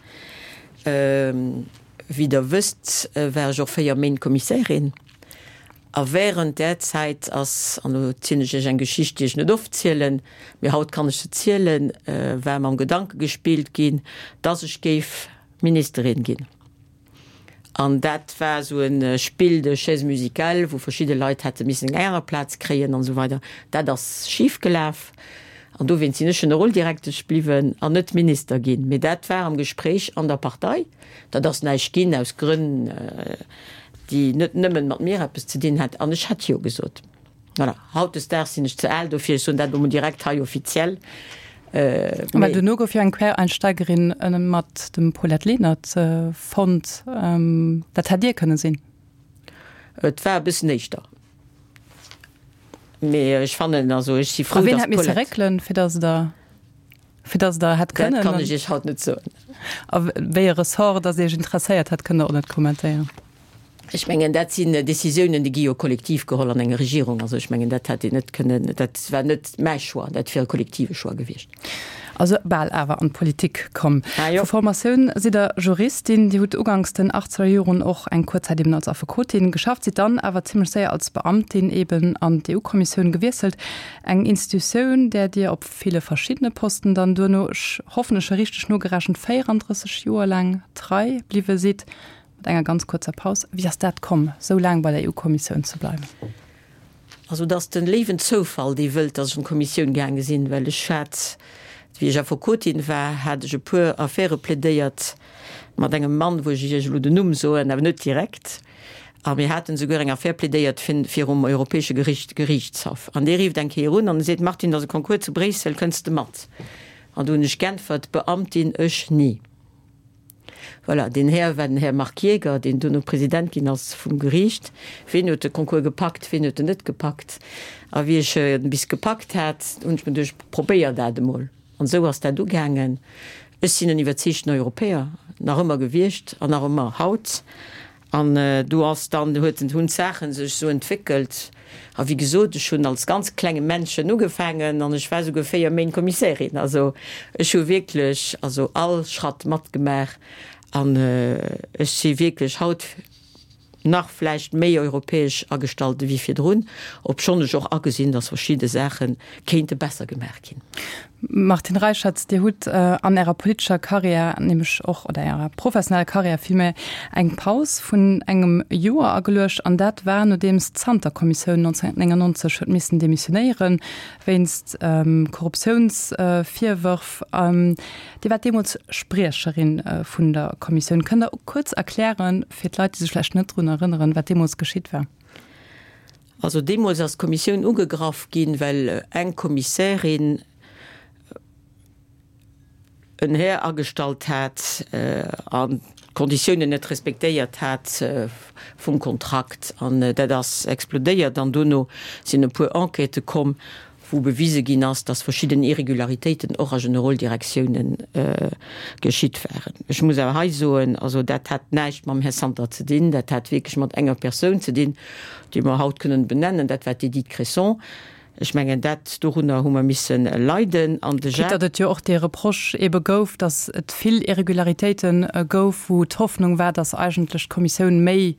Wéi Der wësst, war ech och 4 Méint Kommissärin a während där Zäit ass, an elo zielen ech Iech eng Geschicht, déi ech net oft zielen, mee haut kann ech se zielen, war mam Gedanke gespillt ginn, dass ech géif Ministerin ginn. An dat war esou e Spill de chaises musicales, wou verschidde Leit hätte missen eng aner Plaz kréien an esou weider. Dat ass schif gelaf an dowéinst sinn ech Generoldirektesch bliwwen an net Minister ginn. Mee dat war am Gespréich an der Partei. Dat ass näischt ginn aus Grënn, déi net nëmmen mat mir eppes ze dinn hat. An ech hätt Jo gesot. Voilà, hautdesdaags sinn ech ze al dofir, ech soen dat elo mol direkt hei offiziell. Mä duerno gouf jo eng Quereinsteigerin mat dem Paulette Lenert fonnt. Dat hätt Dir kënne sinn. Et war e bëssen éischter. Mee ech fannen, also ech si frou, dass d'Paulette. A wien hätt misse réckelen, fir dass Der, fir dass Der hätt kënnen. Dat kann ech Iech haut net soen. A wéi e Ressort dass Iech interesséiert hätt, kënnt Der och net kommentéieren. Ech mengen, dat sinn Décisiounen, déi gi jo kollektiv geholl an enger Regierung. Also ech mengen, dat hätt een net kënnen, dat war net mäi Choix, dat wier e kollektive Choix gewiescht. Also bal awer an d'Politik komm. Ah jo. Vu Formatioun sidd Der Juristin. Dir hutt uganks den achtzeger Joren och eng kuerz Zäit eben als Affekotin geschafft, sidd dann awer zimmlech séier als Beamtin eben an d'EU-Kommissioun gewiesselt, eng Institutioun, där Dir op ville verschiddene Posten dann duerno, ech hoffen, ech hu richteg nogerechent, 34 Joer laang trei bliwwe sidd. Mat enger ganz kuerzer Paus. Wéi ass dat komm, sou laang bei der EU-Kommissioun ze bleiwen? Also et ass de léiwen Zoufall, dee wëllt, datt ech an d'Kommissioun gaange sinn, well ech hat, wéi ech Affekotin war, hat ech e puer Affäre plädéiert mat engem Mann, wou ech Iech elo den Numm soen, awer net direkt. A mir haten esouguer eng Affär plädéiert virum Europäesche Gericht, Geriichtshaff. An dee rífft eng Kéier un an e seet, Martine, et ass e Concours zu Bréissel, kënns de mat? An do hunn ech g'äntwert, Beamtin, ech ni. Voilà, deen Här war den Här Marc Jaeger, deen duerno President ginn ass vum Geriicht. Ween huet de Concours gepackt, ween huet en net gepackt? A wéi ech en bis gepackt hat, hunn ech mir geduecht, probéier dat emol. An esou ass dat ugaangen. Ech sinn en iwwerzeegten Europäer, nach ëmmer gewiescht an nach ëmmer haut. An do ass dann, huet, hunn d'Saache sech esou entwéckelt. A wéi gesot, ech hunn als ganz klenge Männchen ugefaangen an ech war souguer 4 Méint Kommissärin. Also ech hu wierklech also all Schratt matgemaach an ech si wierklech haut nach vläicht méi europäesch agestallt ewéi virdrun, obschonn ech och agesinn, datt verschidde Saache kéinte besser gemaach ginn. Martine Reicherts, Dir hutt an Ärer politescher Karriär, nämlech och, oder Ärer professioneller Karriär villméi, eng Paus vun engem Joer ageluecht, an dat war nodeems d'Santer-Kommissioun 1999 huet missen demissionéieren, wéinst Korruptiounsvirwërf. Dir waart deemools Spriecherin vun der Kommissioun. Kënnt Der kuerz erklären, fir d'Leit, déi sech vläicht net drun erënneren, wat deemools geschitt war? Also deemools ass d'Kommissioun ugegraff ginn, well eng Kommissärin en Här agestallt hat an d'Konditiounen net respektéiert hat vum Kontrakt. An dat ass explodéiert an dono sinn e puer Enquêtë komm, wou bewise ginn ass, dass verschidden Irregularitéiten och a Generoldirektiounen geschitt waren. Ech muss awer hei soen, also dat hat näischt mam Här Santer ze dinn, dat hat wierklech mat enger Persoun ze dinn, déi mer haut kënnen benennen, dat war d'Edith Cresson. Ech mengen, dat, dorunner hu mer misse leiden. An de Quitte datt et jo och dee Reproche ebe gouf, datt et vill Irregularitéite gouf, wou d'Hoffnung war, datt eigentlech d'Kommissioun méi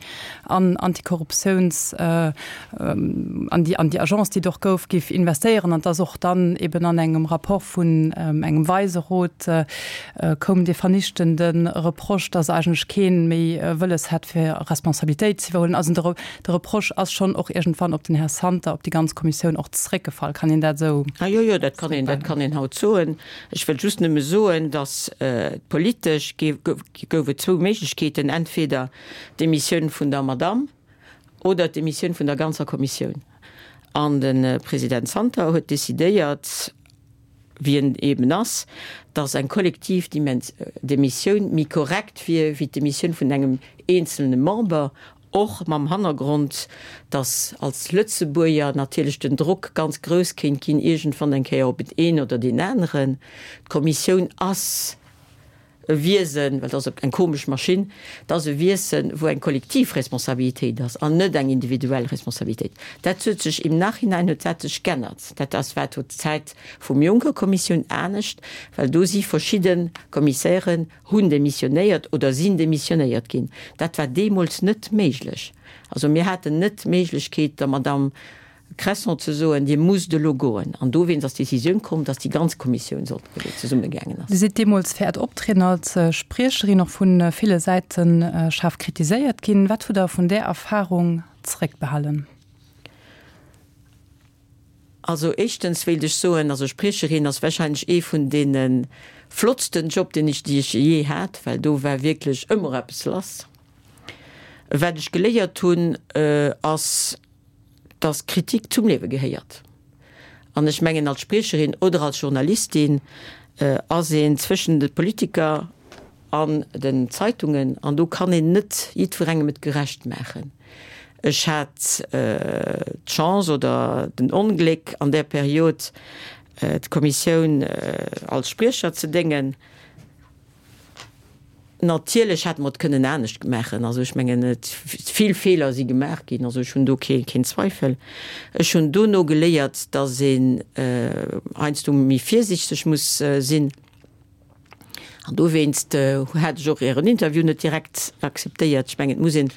an Antikorruptiouns, an déi, an déi Agence, déi et och gouf, géif investéieren an dass och dann eben an engem Rapport vun engem Weiserot koum dee vernichtende Reproche, dass eigentlech kee méi wëlles hätt, fir Responsabilitéit ze iwwerhuelen. Also de, de Reproche ass schonn och iergendwann op den Här Santer, op déi ganz Kommissioun och zréckgefall. Kann een dat esou? Ah jo, jo, dat kann een, dat kann een haut soen. Ech wëll just nëmme soen, dass politesch gouf et zwou Méiglechkeeten, entweder d'Demissioun vun der Madamm oder d'Demissioun vun der ganzer Kommissioun. An de President Santer huet decidéiert, wéi en eben ass, datt eng kollektiv Demissioun méi korrekt wier wéi d'Demissioun vun engem eenzelne Member, och mam Hannergrond, datt als Lëtzebuerger natierlech den Drock ganz grouss kéint ginn iergendwann eng Kéier op een oder deen aneren. D'Kommissioun ass e Wiesen, well dat ass eng komesch Maschinn, dat ass e Wiesen, wou eng kollektiv Responsabilitéit ass an net eng individuell Responsabilitéit. Dat huet sech im Nachhinein huet dat sech g'ännert. Dat ass war zur Zäit vum Juncker-Kommissioun anescht, well do si verschidde Kommissären hunn demissionéiert oder sinn demissionéiert ginn. Dat war deemools net méiglech. Also mir haten net d'Méiglechkeet der Madamm Cresson ze soen, Dir musst elo goen. An dowéinst ass d'Décisioun komm, dass déi ganz Kommissioun sollt goen, zesummegaangen ass. Dir sidd deemools fir Äert Optrieden als Spriecherin och vu ville Säite schaarf kritiséiert ginn. Wat hutt Der vun där Erfarung zeréckbehalen? Also éischtens wéilt ech soen, also Spriecherin ass warscheinlech ee vun deene flottsten Job, deen ech, déi ech jee hat, well do war wierklech ëmmer eppes lass. Wat ech geléiert hunn, ass, dass Kritik zum Liewe gehéiert. An ech mengen, als Spriecherin oder als Journalistin ass een zwëschen de Politiker an den Zeitungen, an do kann een net jiddwerengem et gerecht maachen. Ech hat d'Chance oder den Ongléck an där Period d'Kommissioun als Spriecher ze déngen. Natierlech hätte mer et kënnen anescht maachen. Also ech mengen, et vill Feeler si gemaach ginn. Also ech hunn do kee keen Zweifel. Ech hunn dono geléiert, datt een heiansdo méi virsiichteg muss sinn. An dowéinst hat ech och Ären Interview net direkt akzeptéiert. Ech mengen, et muss een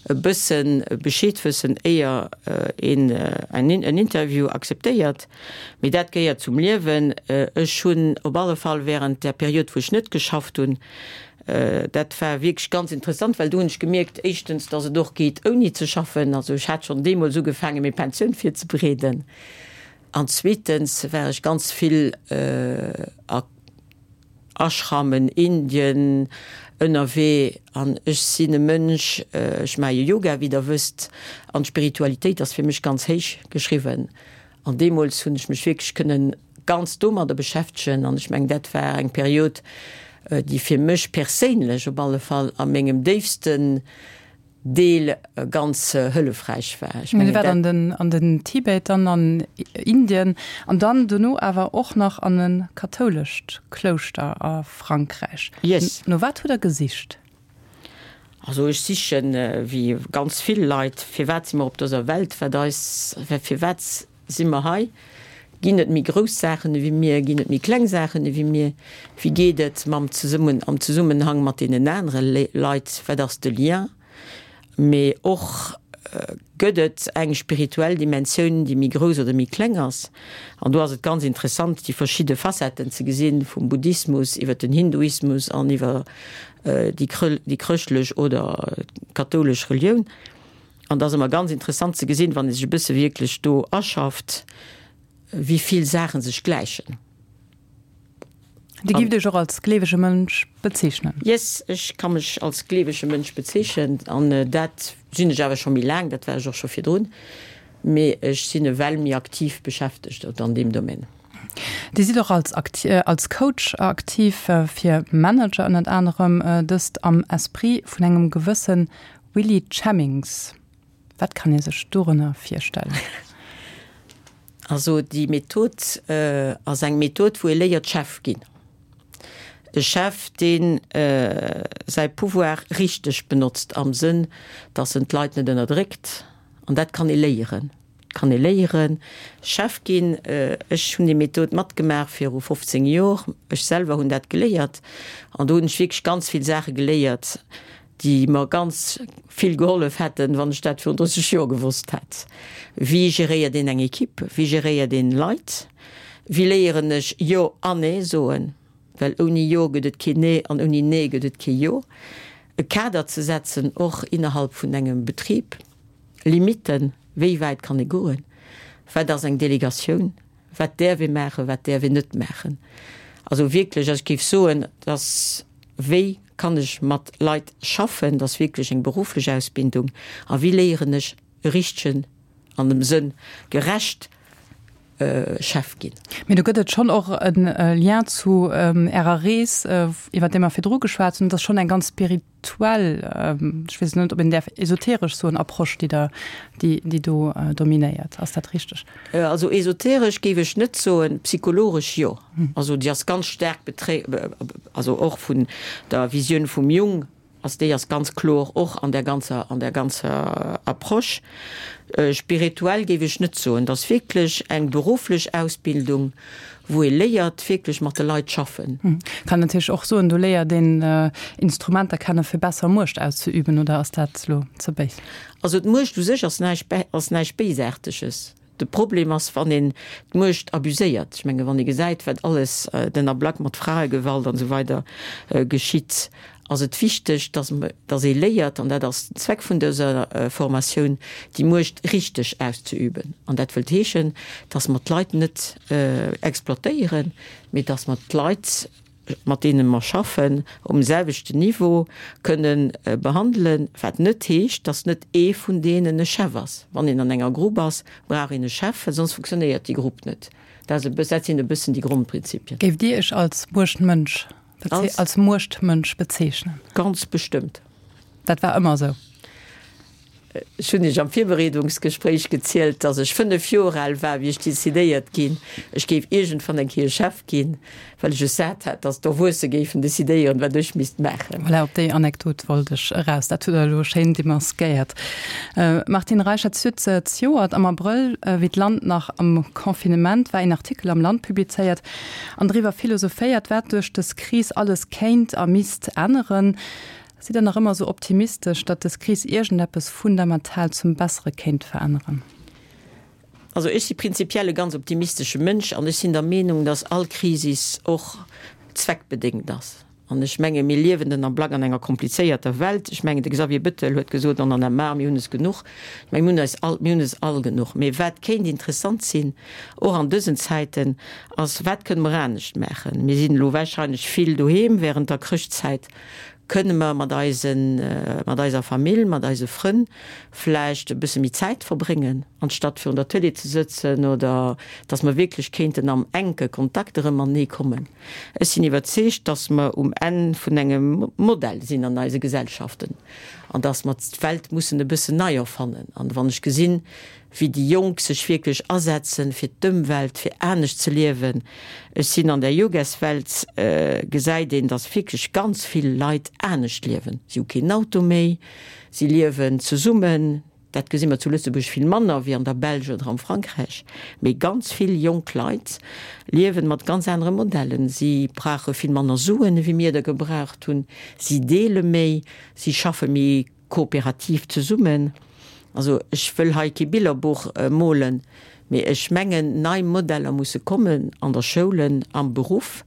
e bësse Bescheed wëssen, éier een en Interview akzeptéiert. Mee dat gehéiert zum Liewen. Ech hunn op alle Fall während där Period, wou ech net geschafft hunn, dat war wierklech ganz interessant, well do hunn ech gemierkt, éischtens, dass et och geet ouni ze schaffen. Also ech hat schonn deemools ugefaangen, meng Pensioun virzebereeden. An zweetens war ech ganz vill a Ashramen, Indien, ënnerwee. An ech sinn e Mënsch, ech maache jo Yoga, wéi Der wësst, an d'Spiritualitéit ass fir mech ganz héich geschriwwen. An deemools hunn ech mech wierklech kënnen ganz domadder beschäftegen. An ech mengen, dat war eng Period, déi fir mech perséinlech op alle Fall a mengem déifsten Deel ganz hëllefräich war. Ech mengen, dat. An den, an den Tibet, dann an Indien an dann dono awer och nach an e kathoulescht Klouschter a Frankräich. Yes. No wat hutt Der gesicht? Also ech sichen, wéi ganz vill Leit, firwat si mer op dëser Welt, wat eis, firwat Si mer hei? Ginn et méi grouss Saachen ewéi mir? Ginn et méi kleng Saachen ewéi mir? Wéi geet et mam Zesummen, am Zesummenhang mat deenen anere Leit? Wat ass de Lien? Mee och, Gëtt et eng spirituell Dimensioun, déi méi grouss oder méi kleng ass? An do ass et ganz interessant, déi verschidde Facetten ze gesinn, vum Buddhismus iwwer den Hinduismus an iwwer déi chrëschtlech oder kathoulesch Relioun. An et ass ëmmer ganz interessant ze gesinn, wann ee sech e bësse wierklech do aschafft, wéi vill Saache sech gläichen. Dir gift Iech och als gleewege Mënsch bezeechnen? Yes, ech ka mech als gleewege Mënsch bezeechnen. An dat sinn ech awer scho méi laang, dat war ech och scho virdrun. Mee ech sinn ewell méi aktiv beschäftegt an deem Domaine. Dir sidd och als als Coach aktiv fir Manager ënnert anerem, dëst am Esprit vun engem gewësse Willy Chemmings, Wat kann ee sech dorënner virstellen? Also déi Method ass eng Method, wou ee léiert Chef ginn. E Chef, dee säi Pouvoir richteg benotzt am Sënn, datt en d'Leit net ënnerdréckt. An dat kann ee léieren. Et kann ee léieren Chef ginn. Ech hunn déi Method matgemaach viru 15 Jor. Ech selwer hunn dat geléiert an do hunn ech wierklech ganz vill Saache geléiert, déi mer ganz vill gehollef hätten, wann ech dat virun 30 Joer gewosst hätt. Wéi geréiert een eng Equipe? Wéi geréiert een Leit? Wéi léieren ech Jo an Nee soen? Well ouni Jo gëtt et keen Nee an ouni Nee gëtt et kee Jo. E Kader ze setzen, och innerhalb vun engem Betrib, Limitten, wéi wäit kann ee goen? Wat ass eng Delegatioun? Wat däerf ee maachen, wat däerf een net maachen? Also wierklech, also ech géif soen, dass, wéi kann ech mat Leit schaffen, dass wierklech eng berufflech Ausbildung a wéi léieren ech e richtegen, an dem Sënn gerecht Chef ginn. Mee do gëtt et schonn och e Lien zu Ärer Rees, iwwer déi mer virdru geschwat hunn. Et ass schonn eng ganz spirituell, ech weess net, ob een däerf esoteresch soen, Approche, déi Der, déi, déi do dominéiert. Ass dat richteg? Also esoteresch géif ech net soen, psychologesch jo. Also déi ass ganz staark betré, also och vun der Visioun vum Jung Also déi ass ganz kloer och an där ganzer, an där ganzer Approche. Spirituell géif ech net soen. Et ass wierklech eng berufflech Ausbildung, wou ee léiert, wierklech mat de Leit schaffen. Kann natierlech och soen, do léiert een Instrumenter kennen, fir besser Muecht auszeüben, oder ass dat elo ze béis? Also d'Muecht u sech ass näischt, ass näischt Béisaarteges. De Problem ass, wann een d'Muecht abuséiert. Ech menge wann ee gesäit, wat alles den Ablack mat Fraegewalt an esou weider geschitt, ass et wichteg, dass, dass ee léiert, an dat ass den Zweck vun dëser Formatioun, déi Muecht richteg auszeüben. An dat wëllt heeschen, dass mer d'Leit net exploitéieren, mee dass mer d'Leit, mat deene mer schaffen, um selwechten Niveau kënne behandelen, wat net heescht, dass net ee vun deenen e Chef ass. Wann een an enger Grupp ass, brauch een e Chef, well soss funktionéiert déi Grupp net. Dat ass e bëss, dat sinn e bëssen déi Grondprinzipien. Géift Dir Iech als Muechtmënsch, als Muechtmënsch bezeechnen? Ganz bestëmmt. Dat war ëmmer esou? Ech hunn Iech am Virbereedungsgespréich gezielt, dass ech 5 Joer al war, wéi ech decidéiert ginn, ech géif iergendwann eng Kéier Chef ginn, well ech es sat hat, dass d'Erwuesse géifen decidéieren, wat ech misst maachen. Voilà, op déi Anekdot wollt ech eraus. Dat hutt Der elo schéin demaskéiert. Martine Reichert, Dir hutt zejoert am Abrëll, wéi d'Land nach am Confinement war, een Artikel am Land publizéiert an driwwer philosophéiert, wat duerch dës Kris alles kéint a misst änneren. Sidd Der nach ëmmer esou optimistesch, datt dës Kris iergendeppes fundamental zum Bessere kéint veränneren? Also ech si prinzipiell e ganz optimistesche Mënsch an ech sinn der Meenung, datt all Krisis och zweckbedéngt ass. An ech menge mir liewen den Ablack an enger komplizéierter Welt. Ech mengen de Xavier Bettel huet gesot, on en a marre, mir hunn es genuch. Ech menge mir hunn eis all, mir hunn es all genuch. Mee wat kéint interessant sinn, och an dësen Zäiten, ass, wat kënne mer anescht maachen? Mir sinn elo wahrscheinlech vill doheem während der Chrëschtzäit. Kënne mer mat eisen, mat eiser Famill, mat eise Frënn vläicht e bësse méi Zäit verbréngen, anstatt virun der Tëlee ze sëtzen, oder dass mer wierklech kéinten am enke Kontakt erëm matenee kommen? Ech sinn iwwerzeegt, dass mer um Enn vun engem Modell sinn an eise Gesellschaften an dass mer d'Welt mussen e bëssen nei erfannen. An wann ech gesinn, wéi déi Jonk sech wierklech asetzen fir d'Ëmwelt, fir anescht ze liewen. Ech sinn an der Yogaswelt, gesäit een, dass wierklech ganz vill Leit anescht liewen. Si hu keen Auto méi, si liewen zesummen. Dat gesi mer zu Lëtzebuerg vill manner wéi an der Belsch oder am Frankräich. Mee ganz vill jonk Leit liewen mat ganz anere Modellen. Si brauche vill manner Suen, ewéi mir der gebraucht hunn. Si deele méi, si schaffe méi kooperativ zesummen. Also ech wëll hei kee Billerbuch molen, mee ech mengen, nei Modeller musse kommen an der Schoulen, am Beruff,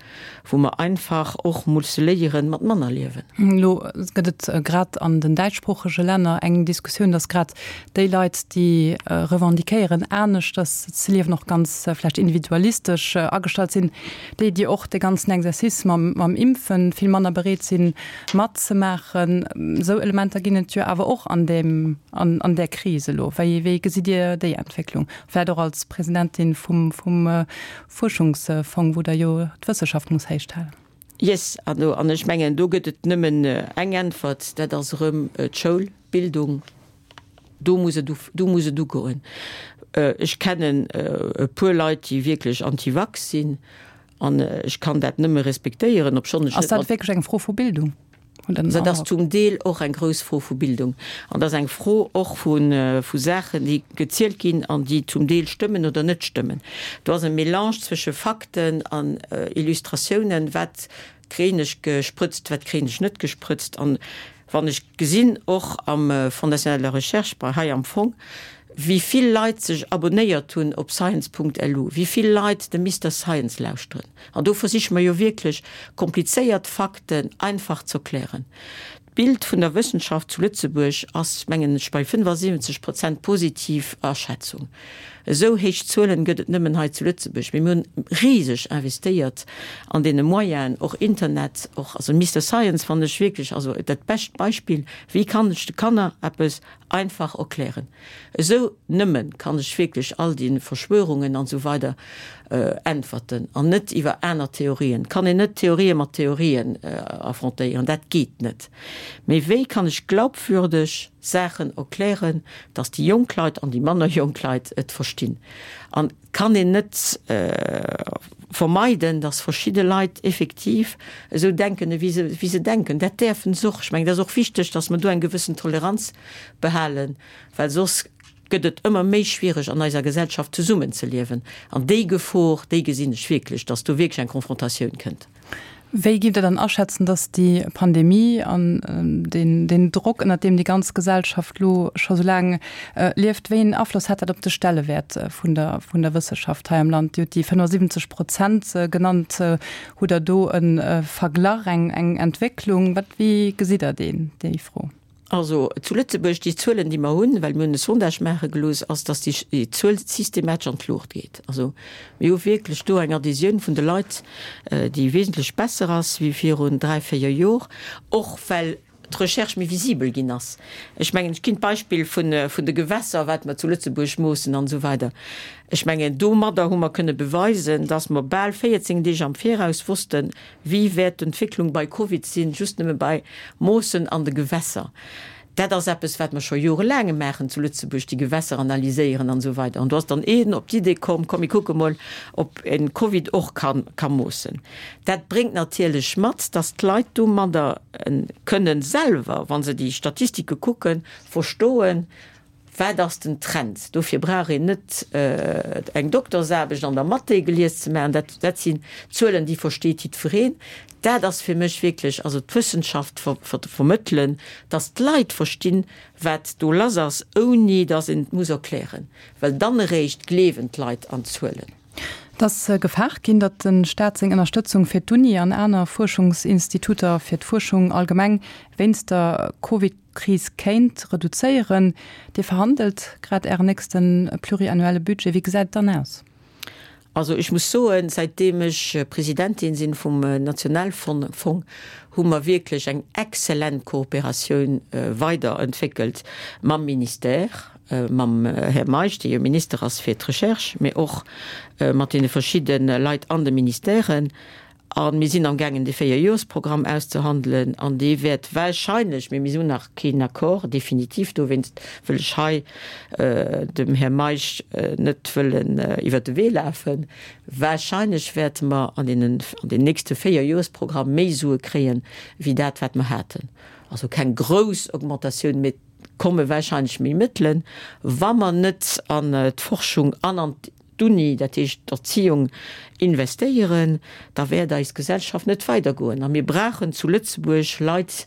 wou mer einfach och musse léieren, mat manner liewen. Elo gëtt et grad an den däitschsproochege Länner eng Diskussioun, datt grad déi Leit, déi revendiquéieren, aneschters ze liewen, och ganz vläicht individualistesch agestallt sinn, déi, déi och de ganzen Exercice mam Impfen vill manner bereet sinn, matzemaachen. Esou Elementer ginn et jo awer och an deem, an där Kris elo. Wéi, wéi gesitt Dir déi Entwécklung? Vläicht och als Presidentin vum, vum Fuerschungsfong, wou Der jo d'Wësseschaft muss héichhalen. Yes, an ech mengen, do gëtt et nëmmen eng Äntwert, dat ass erëm d'Schoul, d'Bildung. Do muss et, do muss et ugoen. Ech kennen e puer Leit, déi wierklech anti-vax sinn, an ech kann dat nëmme respektéieren, obschonn ech net mat. Ass dat wierklech eng Fro vu Bildung? Dat ass zum Deel och eng grouss Fro vu Bildung. An dat ass eng Fro och vu, vu Saachen, déi gezielt ginn an déi zum Deel stëmmen oder net stëmmen. Do ass e Mélange zwësche Fakten an Illustratiounen, wat kréien ech gesprëtzt, wat kréien ech net gesprëtzt. An wann ech gesinn, och am Fonds national de la recherche, bei hei am Fong, wéi vill Leit sech abonnéiert hunn op science.lu, wéi vill Leit de Mister Science lauschteren, an do versiche mer jo wierklech, komplizéiert Fakten einfach z'erklären. D'Bild vun der Wëssenschaft zu Lëtzebuerg ass, mengen ech, bei 75 Prozent positiv Aschätzung. Esou héich Zuelen gëtt et nëmmen hei zu Lëtzebuerg. Mee mir hunn riseg investéiert an deene Moyenen, och Internet, och, also Mister Science fannen ech wierklech, also dat bescht Beispill, wéi kann ech de Kanner eppes einfach erklären. Esou nëmmen kann ech wierklech all déi Verschwörungen an esou weider äntwerten an net iwwer aner Theorien. Et kann een net Theorië mat Theorien affrontéieren, dat geet net. Mee wéi kann ech glaubwürdeg Saachen erklären, dass déi jonk Leit an déi manner jonk Leit et verstinn? An et kann een net vermeiden, dass verschidde Leit effektiv esou denken, ewéi se, wéi se denken. Dat däerfen se och. Ech mengen, et ass och wichteg, dass mer do eng gewëssen Toleranz behalen, well soss gëtt et ëmmer méi schwiereg an eiser Gesellschaft zesummenzeliewen. An déi Gefor, déi gesinn ech wierklech, dass do wierklech eng Konfrontatioun kënnt. Wéi gitt Der dann aschätzen, dass déi Pandemie an deen Drock, ënnert deem déi ganz Gesellschaft elo scho sou laang lieft, wéi een Afloss hat dat op de Stellewäert vun der vun der Wësseschaft hei am Land? Dir hutt déi 75 Prozent genannt. Hutt Der do e Verglach, eng Entwécklung? Wat, wéi gesitt Der deen, déi Fro? Also zu Lëtzebuerg, déi Zuelen, déi mer hunn, well mir hunn e Sondage maache gelooss, ass, datt déi Zuel systematesch an d'Luucht geet. Also mir hu wierklech do eng Adhésioun vun de Leit, déi wesentlech besser ass wéi virun dräi, véier Jor, och well d'Recherche méi visibel ginn ass. Ech mengen, ech ginn d'Beispill vun de Gewässer, wat mer zu Lëtzebuerg moossen an esou weider. Ech mengen, domadder hu mer kënne beweisen, datt mer bal 14 Deeg am Viraus wossten, Wéi wäert d'Entwécklung bei Covid sinn, just nëmme bei Moossen an de Gewässer? Dat ass eppes, wat mer scho jorelaange maachen zu Lëtzebuerg, déi Gewässer analyséieren an esou weider. An do ass dann een op d'Idee komm, komm mir kucke mol, ob een Covid och ka moossen. Dat bréngt natierlech mat, dass d'Leit domadder kënnen selwer, wa se déi Statistike kucken, verstoen, Wat ass den Trend? Dofir brauch een net eng Doktersaarbecht an der Mathé gelies ze maachen. Dat, dat sinn Zuelen, déi versteet jiddwereen. Dat ass fir mech wierklech also d'Wëssenschaft vermëttelen, dass d'Leit verstinn, wat do lass ass, ouni dass een et muss erklären, well dann eréischt gleewen d'Leit an d'Zuelen. Et ass gefaart ginn, datt de Staat seng Ënnerstëtzung fir d'Uni an aner Fuerschungsinstituter, fir d'Fuerschung allgemeng, wéinst der Covid-Kris kéint reduzéieren. Dir verhandelt grad Ären nächste pluriannuelle Budget. Wéi gesäit et dann aus? Also ech muss soen, säitdeem ech Presidentin sinn vum Nationalfong, hu mer wierklech eng exzellent Kooperatioun weiderentwéckelt mam Ministère, mam Här Meisch, dee jo Minister ass fir d'Recherche, mee och mat deene verschidde Leit an de Ministèren. A mir sinn amgaangen, dee Véierjoresprogramm auszehandelen an dee wäert wahrscheinlech, mee mir hunn nach keen Accord definitiv, dowéinst wëll ech hei dem Här Meisch net wëllen iwwert de Wee lafen, wahrscheinlech wäerte mer an deenen, an deem nächste Véierjoresprogramm méi Sue kréien, wéi dat, wat mer haten. Also keng grouss Augmentatioun, mee et komme wahrscheinlech méi Mëttelen, wa mer net an d'Forschung an an d'Uni, dat heescht d'Erziehung, investéieren, da wäert eis Gesellschaft net weidergoen. A mir brauchen zu Lëtzebuerg Leit,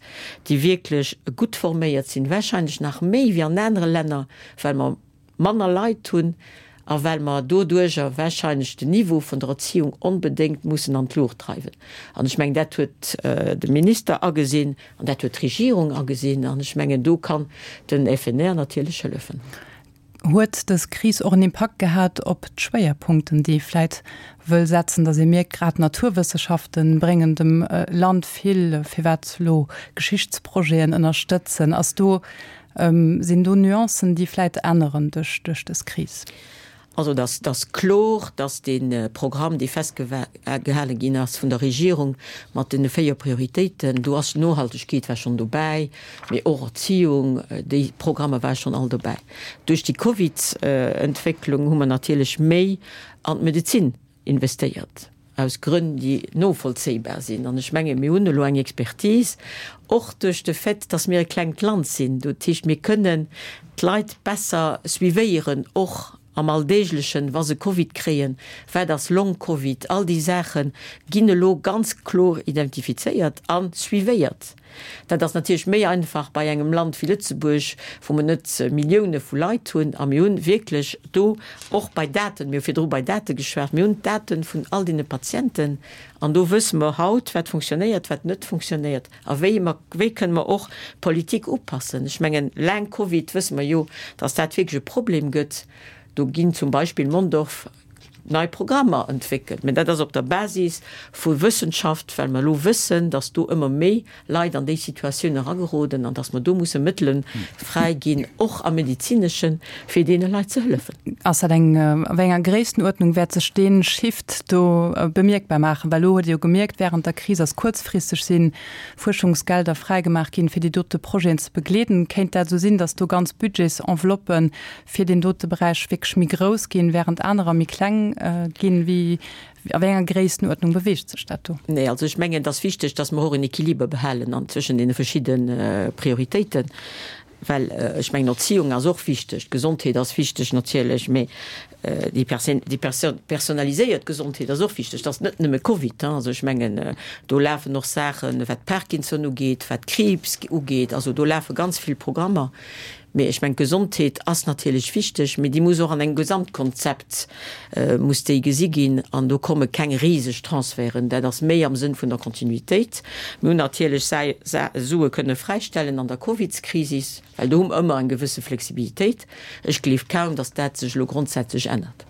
déi wierklech gutt forméiert sinn, wahrscheinlech nach méi wéi an anere Länner, well mer manner Leit hunn a well mer doduerjer wahrscheinlech den Niveau vun der Erziehung onbedéngt mussen an d'Luucht dreiwen. An ech mengen, dat huet de Minister agesinn an dat huet d'Regierung agesinn an ech mengen, do kann den FNR natierlech hëllefen. Huet dës Kris och en Impakt gehat op d'Schwéierpunkten, déi ee vläit wëll setzen, datt ee mierkt, grad d'Naturwësseschafte bréngen dem Land vill, firwat elo Geschichtsprojeten ënnerstëtzen? Ass do, sinn do Nuancen, déi vläit änneren duerch dës Kris? Also et ass kloer, datt dee Programm, dee festgehale ginn ass vun der Regierung mat deene 4 Prioritéiten, do ass Nohaltegkeet war schonn dobäi, mee och Erziehung, déi Programmer ware schonn all dobäi. Duerch déi Covid-Entwécklung hu mer natierlech méi an d'Medezin investéiert, aus Grënn, déi novollzéibar sinn. An ech menge mir hunn elo eng Expertise, och duerch de Fait, dass mir e klengt Land sinn. Dat heescht, mir kënnen d'Leit besser suivéieren, och am Alldeeglechen, wa se Covid kréien, wat ass Long-Covid, all déi Saache ginn elo ganz kloer identifizéiert a suivéiert. Dat ass natierlech méi einfach bei engem Land wéi Lëtzebuerg, wou mer net Millioune vu Leit hunn. A mir hunn wierklech do och bei Daten, mir hu virdru bei Date geschwat, mir hunn d'Date vun all deene Patienten an do wësse mer haut, wat funktionéiert, wat net funktionéiert a wéi mer, wéi kënne mer och d'Politik upassen. Ech mengen, laang Covid wësse mer jo, datt dat wierklech e Problem gëtt. Do ginn zum Beispill Mondorf, nei Programmer entwéckelt. Mä dat ass op der Basis vu Wëssenschaft, well mer elo wëssen, dass do ëmmer méi Leit an déi Situatioun erageroden an dass mer do musse Mëttele fräi ginn, och am Medezineschen, fir deene Leit ze hëllefen. Ass dat eng, a wéi enger Gréisstenuerdnung wäert sech dee Shift do bemierkbar maachen? Well elo huet ee jo gemierkt, während der Kris ass kuerzfristeg si Fuerschungsgelder fräigemaach ginn, fir déi dote Projeten ze begleeden. Kéint dat esou sinn, dass do ganz Budgetsenveloppen fir deen dote Beräich wierklech méi grouss ginn, während anerer méi kleng ginn? Wéi, a wéi enger Gréisstenuerdnung beweegt sech dat do? Nee, also ech mengen, et ass wichteg, dass mer och en Equiliber behalen an zwëschen deene verschidde Prioritéiten, well ech mengen, Erziehung ass och wichteg, d'Gesondheet ass wichteg natierlech, mee déi personaliséiert Gesondheet ass och wichteg. Et ass net nëmme Covid, also ech mengen, do lafen och Saachen, wat Parkinson ugeet, wat Kriibs ugeet, also do lafe ganz vill Programmer. Mee ech mengen, d'Gesondheet ass natierlech wichteg, mee déi muss och an engem Gesamtkonzept muss déi gesi ginn. An do komme keng riseg Transferten. Dat ass méi am Sënn vun der Kontinuitéit. Mir hunn natierlech Sue kënne fräistellen an der Covidskrisis, well do hu mer ëmmer eng gewësse Flexibilitéit. Ech gleef kaum, datt dat sech elo grondsätzlech ännert.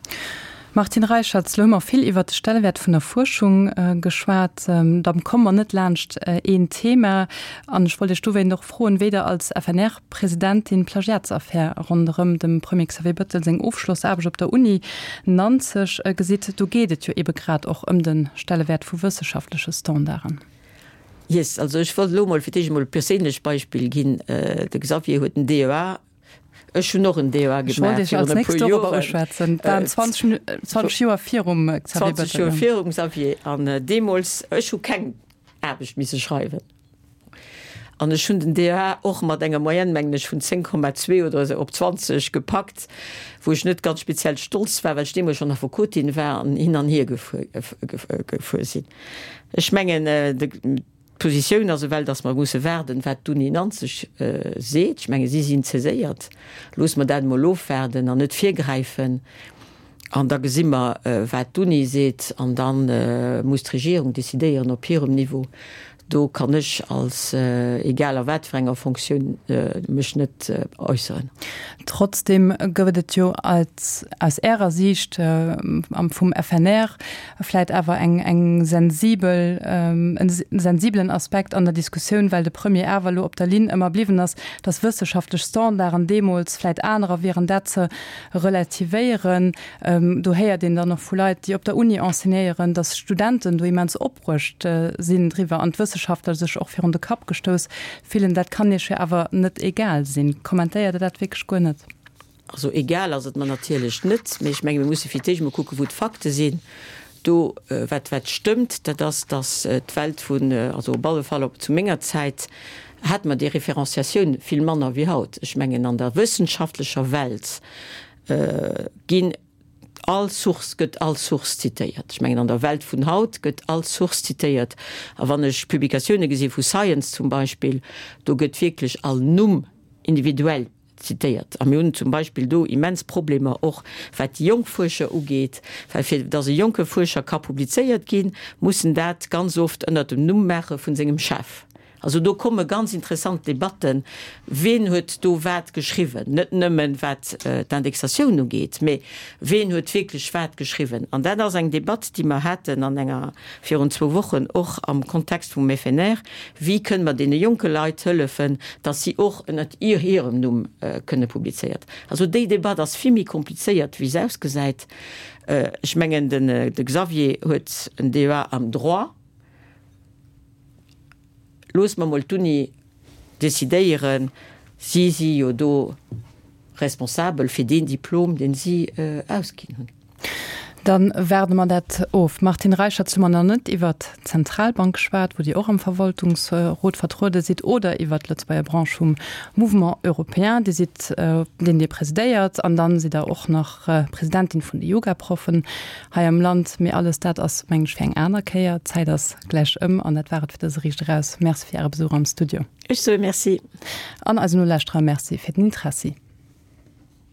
Martine Reicherts, Elo hu mer vill iwwert de Stellewäert vun der Fuerschung geschwat. Da komme mer net laanscht een Thema. An ech wollt Iech dowéint och froen, wéi Der als FNR-Presidentin d'Plagiatsaffär ronderëm dem Premier Xavier Bettel seng Ofschlossaarbecht op der Uni Nanzeg gesitt. Do geet et jo ebe grad och ëm de Stellewäert vu wësseschaftleche Standarden. Yes, also ech wollt elo mol fir d'éischt emol e perséinlecht Beispill ginn. De Xavier huet en DEA, ech hunn och en DEA gemaach. Ech wollt Iech als nächst dorobber uschwätzen. Et waren 20, 20 Joer virum Xavier Bettel. 20 Joer virum Xavier. An deemools, ech hu keng Aarbecht misse schreiwen. An ech hunn den DEA och mat enger Moyenne, mengen ech, vun 10,2 oder esou op 20 gepackt, wou ech net ganz speziell stolz war, well ech deemools schonn Affekotin war an hin an hier gefuer, gefuer sinn. Ech mengen, d'Positioun ass ewell, datt mer musse waarden, wat d'Uni Nanzeg seet. Ech menge si sinn saiséiert. Loosse mer dat emol ofwaarden an net virgräifen. An da gesi mer, wat d'Uni seet. An da muss d'Regierung decidéieren op hirem Niveau. Do kann ech als, egal a wat fir enger Fonctioun, mech net äusseren. Trotzdem gouf et jo als, aus Ärer Siicht vum FNR vläit awer eng, eng sensibel, en sensibelen Aspekt an der Diskussioun, well de Premier awer elo op der Linn ëmmer bliwwen ass, dass wësseschaftlech Standarden deemools vläit anerer wieren, dat ze relativéieren. Do héiert een dann och vu Leit, déi op der Uni enseignéieren, dass Studenten do immens opbruecht sinn driwwer an d'Wësseschaftler sech och virun de Kapp gestouss fillen. Dat kann Iech jo awer net egal sinn. Kommentéiert Der dat wierklech guer net? Also egal ass et mer natierlech net, mee ech menge mir musse fir d'éischt emol kucken, wou d'Fakte sinn. Do, wat wat stëmmt, dat ass, datt d'Welt vun, also op alle Fall op zu menger Zäit, hate mer déi Référenciatioun vill manner wéi haut. Ech mengen an der wëssenschaftlecher Welt ginn all Source gëtt all Source zitéiert. Ech mengen an der Welt vun haut gëtt all Source zitéiert. A wann ech Publikatioune gesi vu Science zum Beispill, do gëtt wierklech all Numm individuell zitéiert. A mir hunn zum Beispill do immens Problemer och wat déi jonk Fuerscher ugeet, well fir datt e jonke Fuerscher ka publizéiert ginn, muss en dat ganz oft ënnert dem Numm maache vun sengem Chef. Also do komme ganz interessant Debatten, ween huet do wat geschriwwen, net nëmmen wat d'Indexatioun ugeet, mä ween huet wierklech wat geschriwwen. An dat ass eng Debatt, déi mer haten an enger, virun zwou Wochen och am Kontext vum FNR, Wéi kënne mer deene jonke Leit hëllefen, datt si och ënnert hirem Numm kënne publizéiert. Also déi Debatt ass vill méi komplizéiert, wéi se ausgesäit. Ech mengen, de Xavier huet en DEA am Droit. Loosse mer mol d'Uni decidéieren, si si jo do responsabel fir deen Diplom, deen si ausginn hunn. Da waarde mer dat of. Martine Reichert, hu mer nach net iwwert d'Zentralbank geschwat, wou Dir och am Verwaltungsrot vertruede sidd, oder iwwert d'Lëtzebuerger Branche vum Mouvement Européen, Dir sidd, deen Dir presidéiert, an dann sidd Der och nach Presidentin vun de Yogaproffen hei am Land. Mee alles dat ass, mengen ech, fir eng aner Kéier. D'Zäit ass gläich ëm an dat war et fir dëse Riicht Eraus. Merci fir Äre Besuch am Studio. Ech soe Merci. An eisen Nolauschterer Merci fir den Interessi.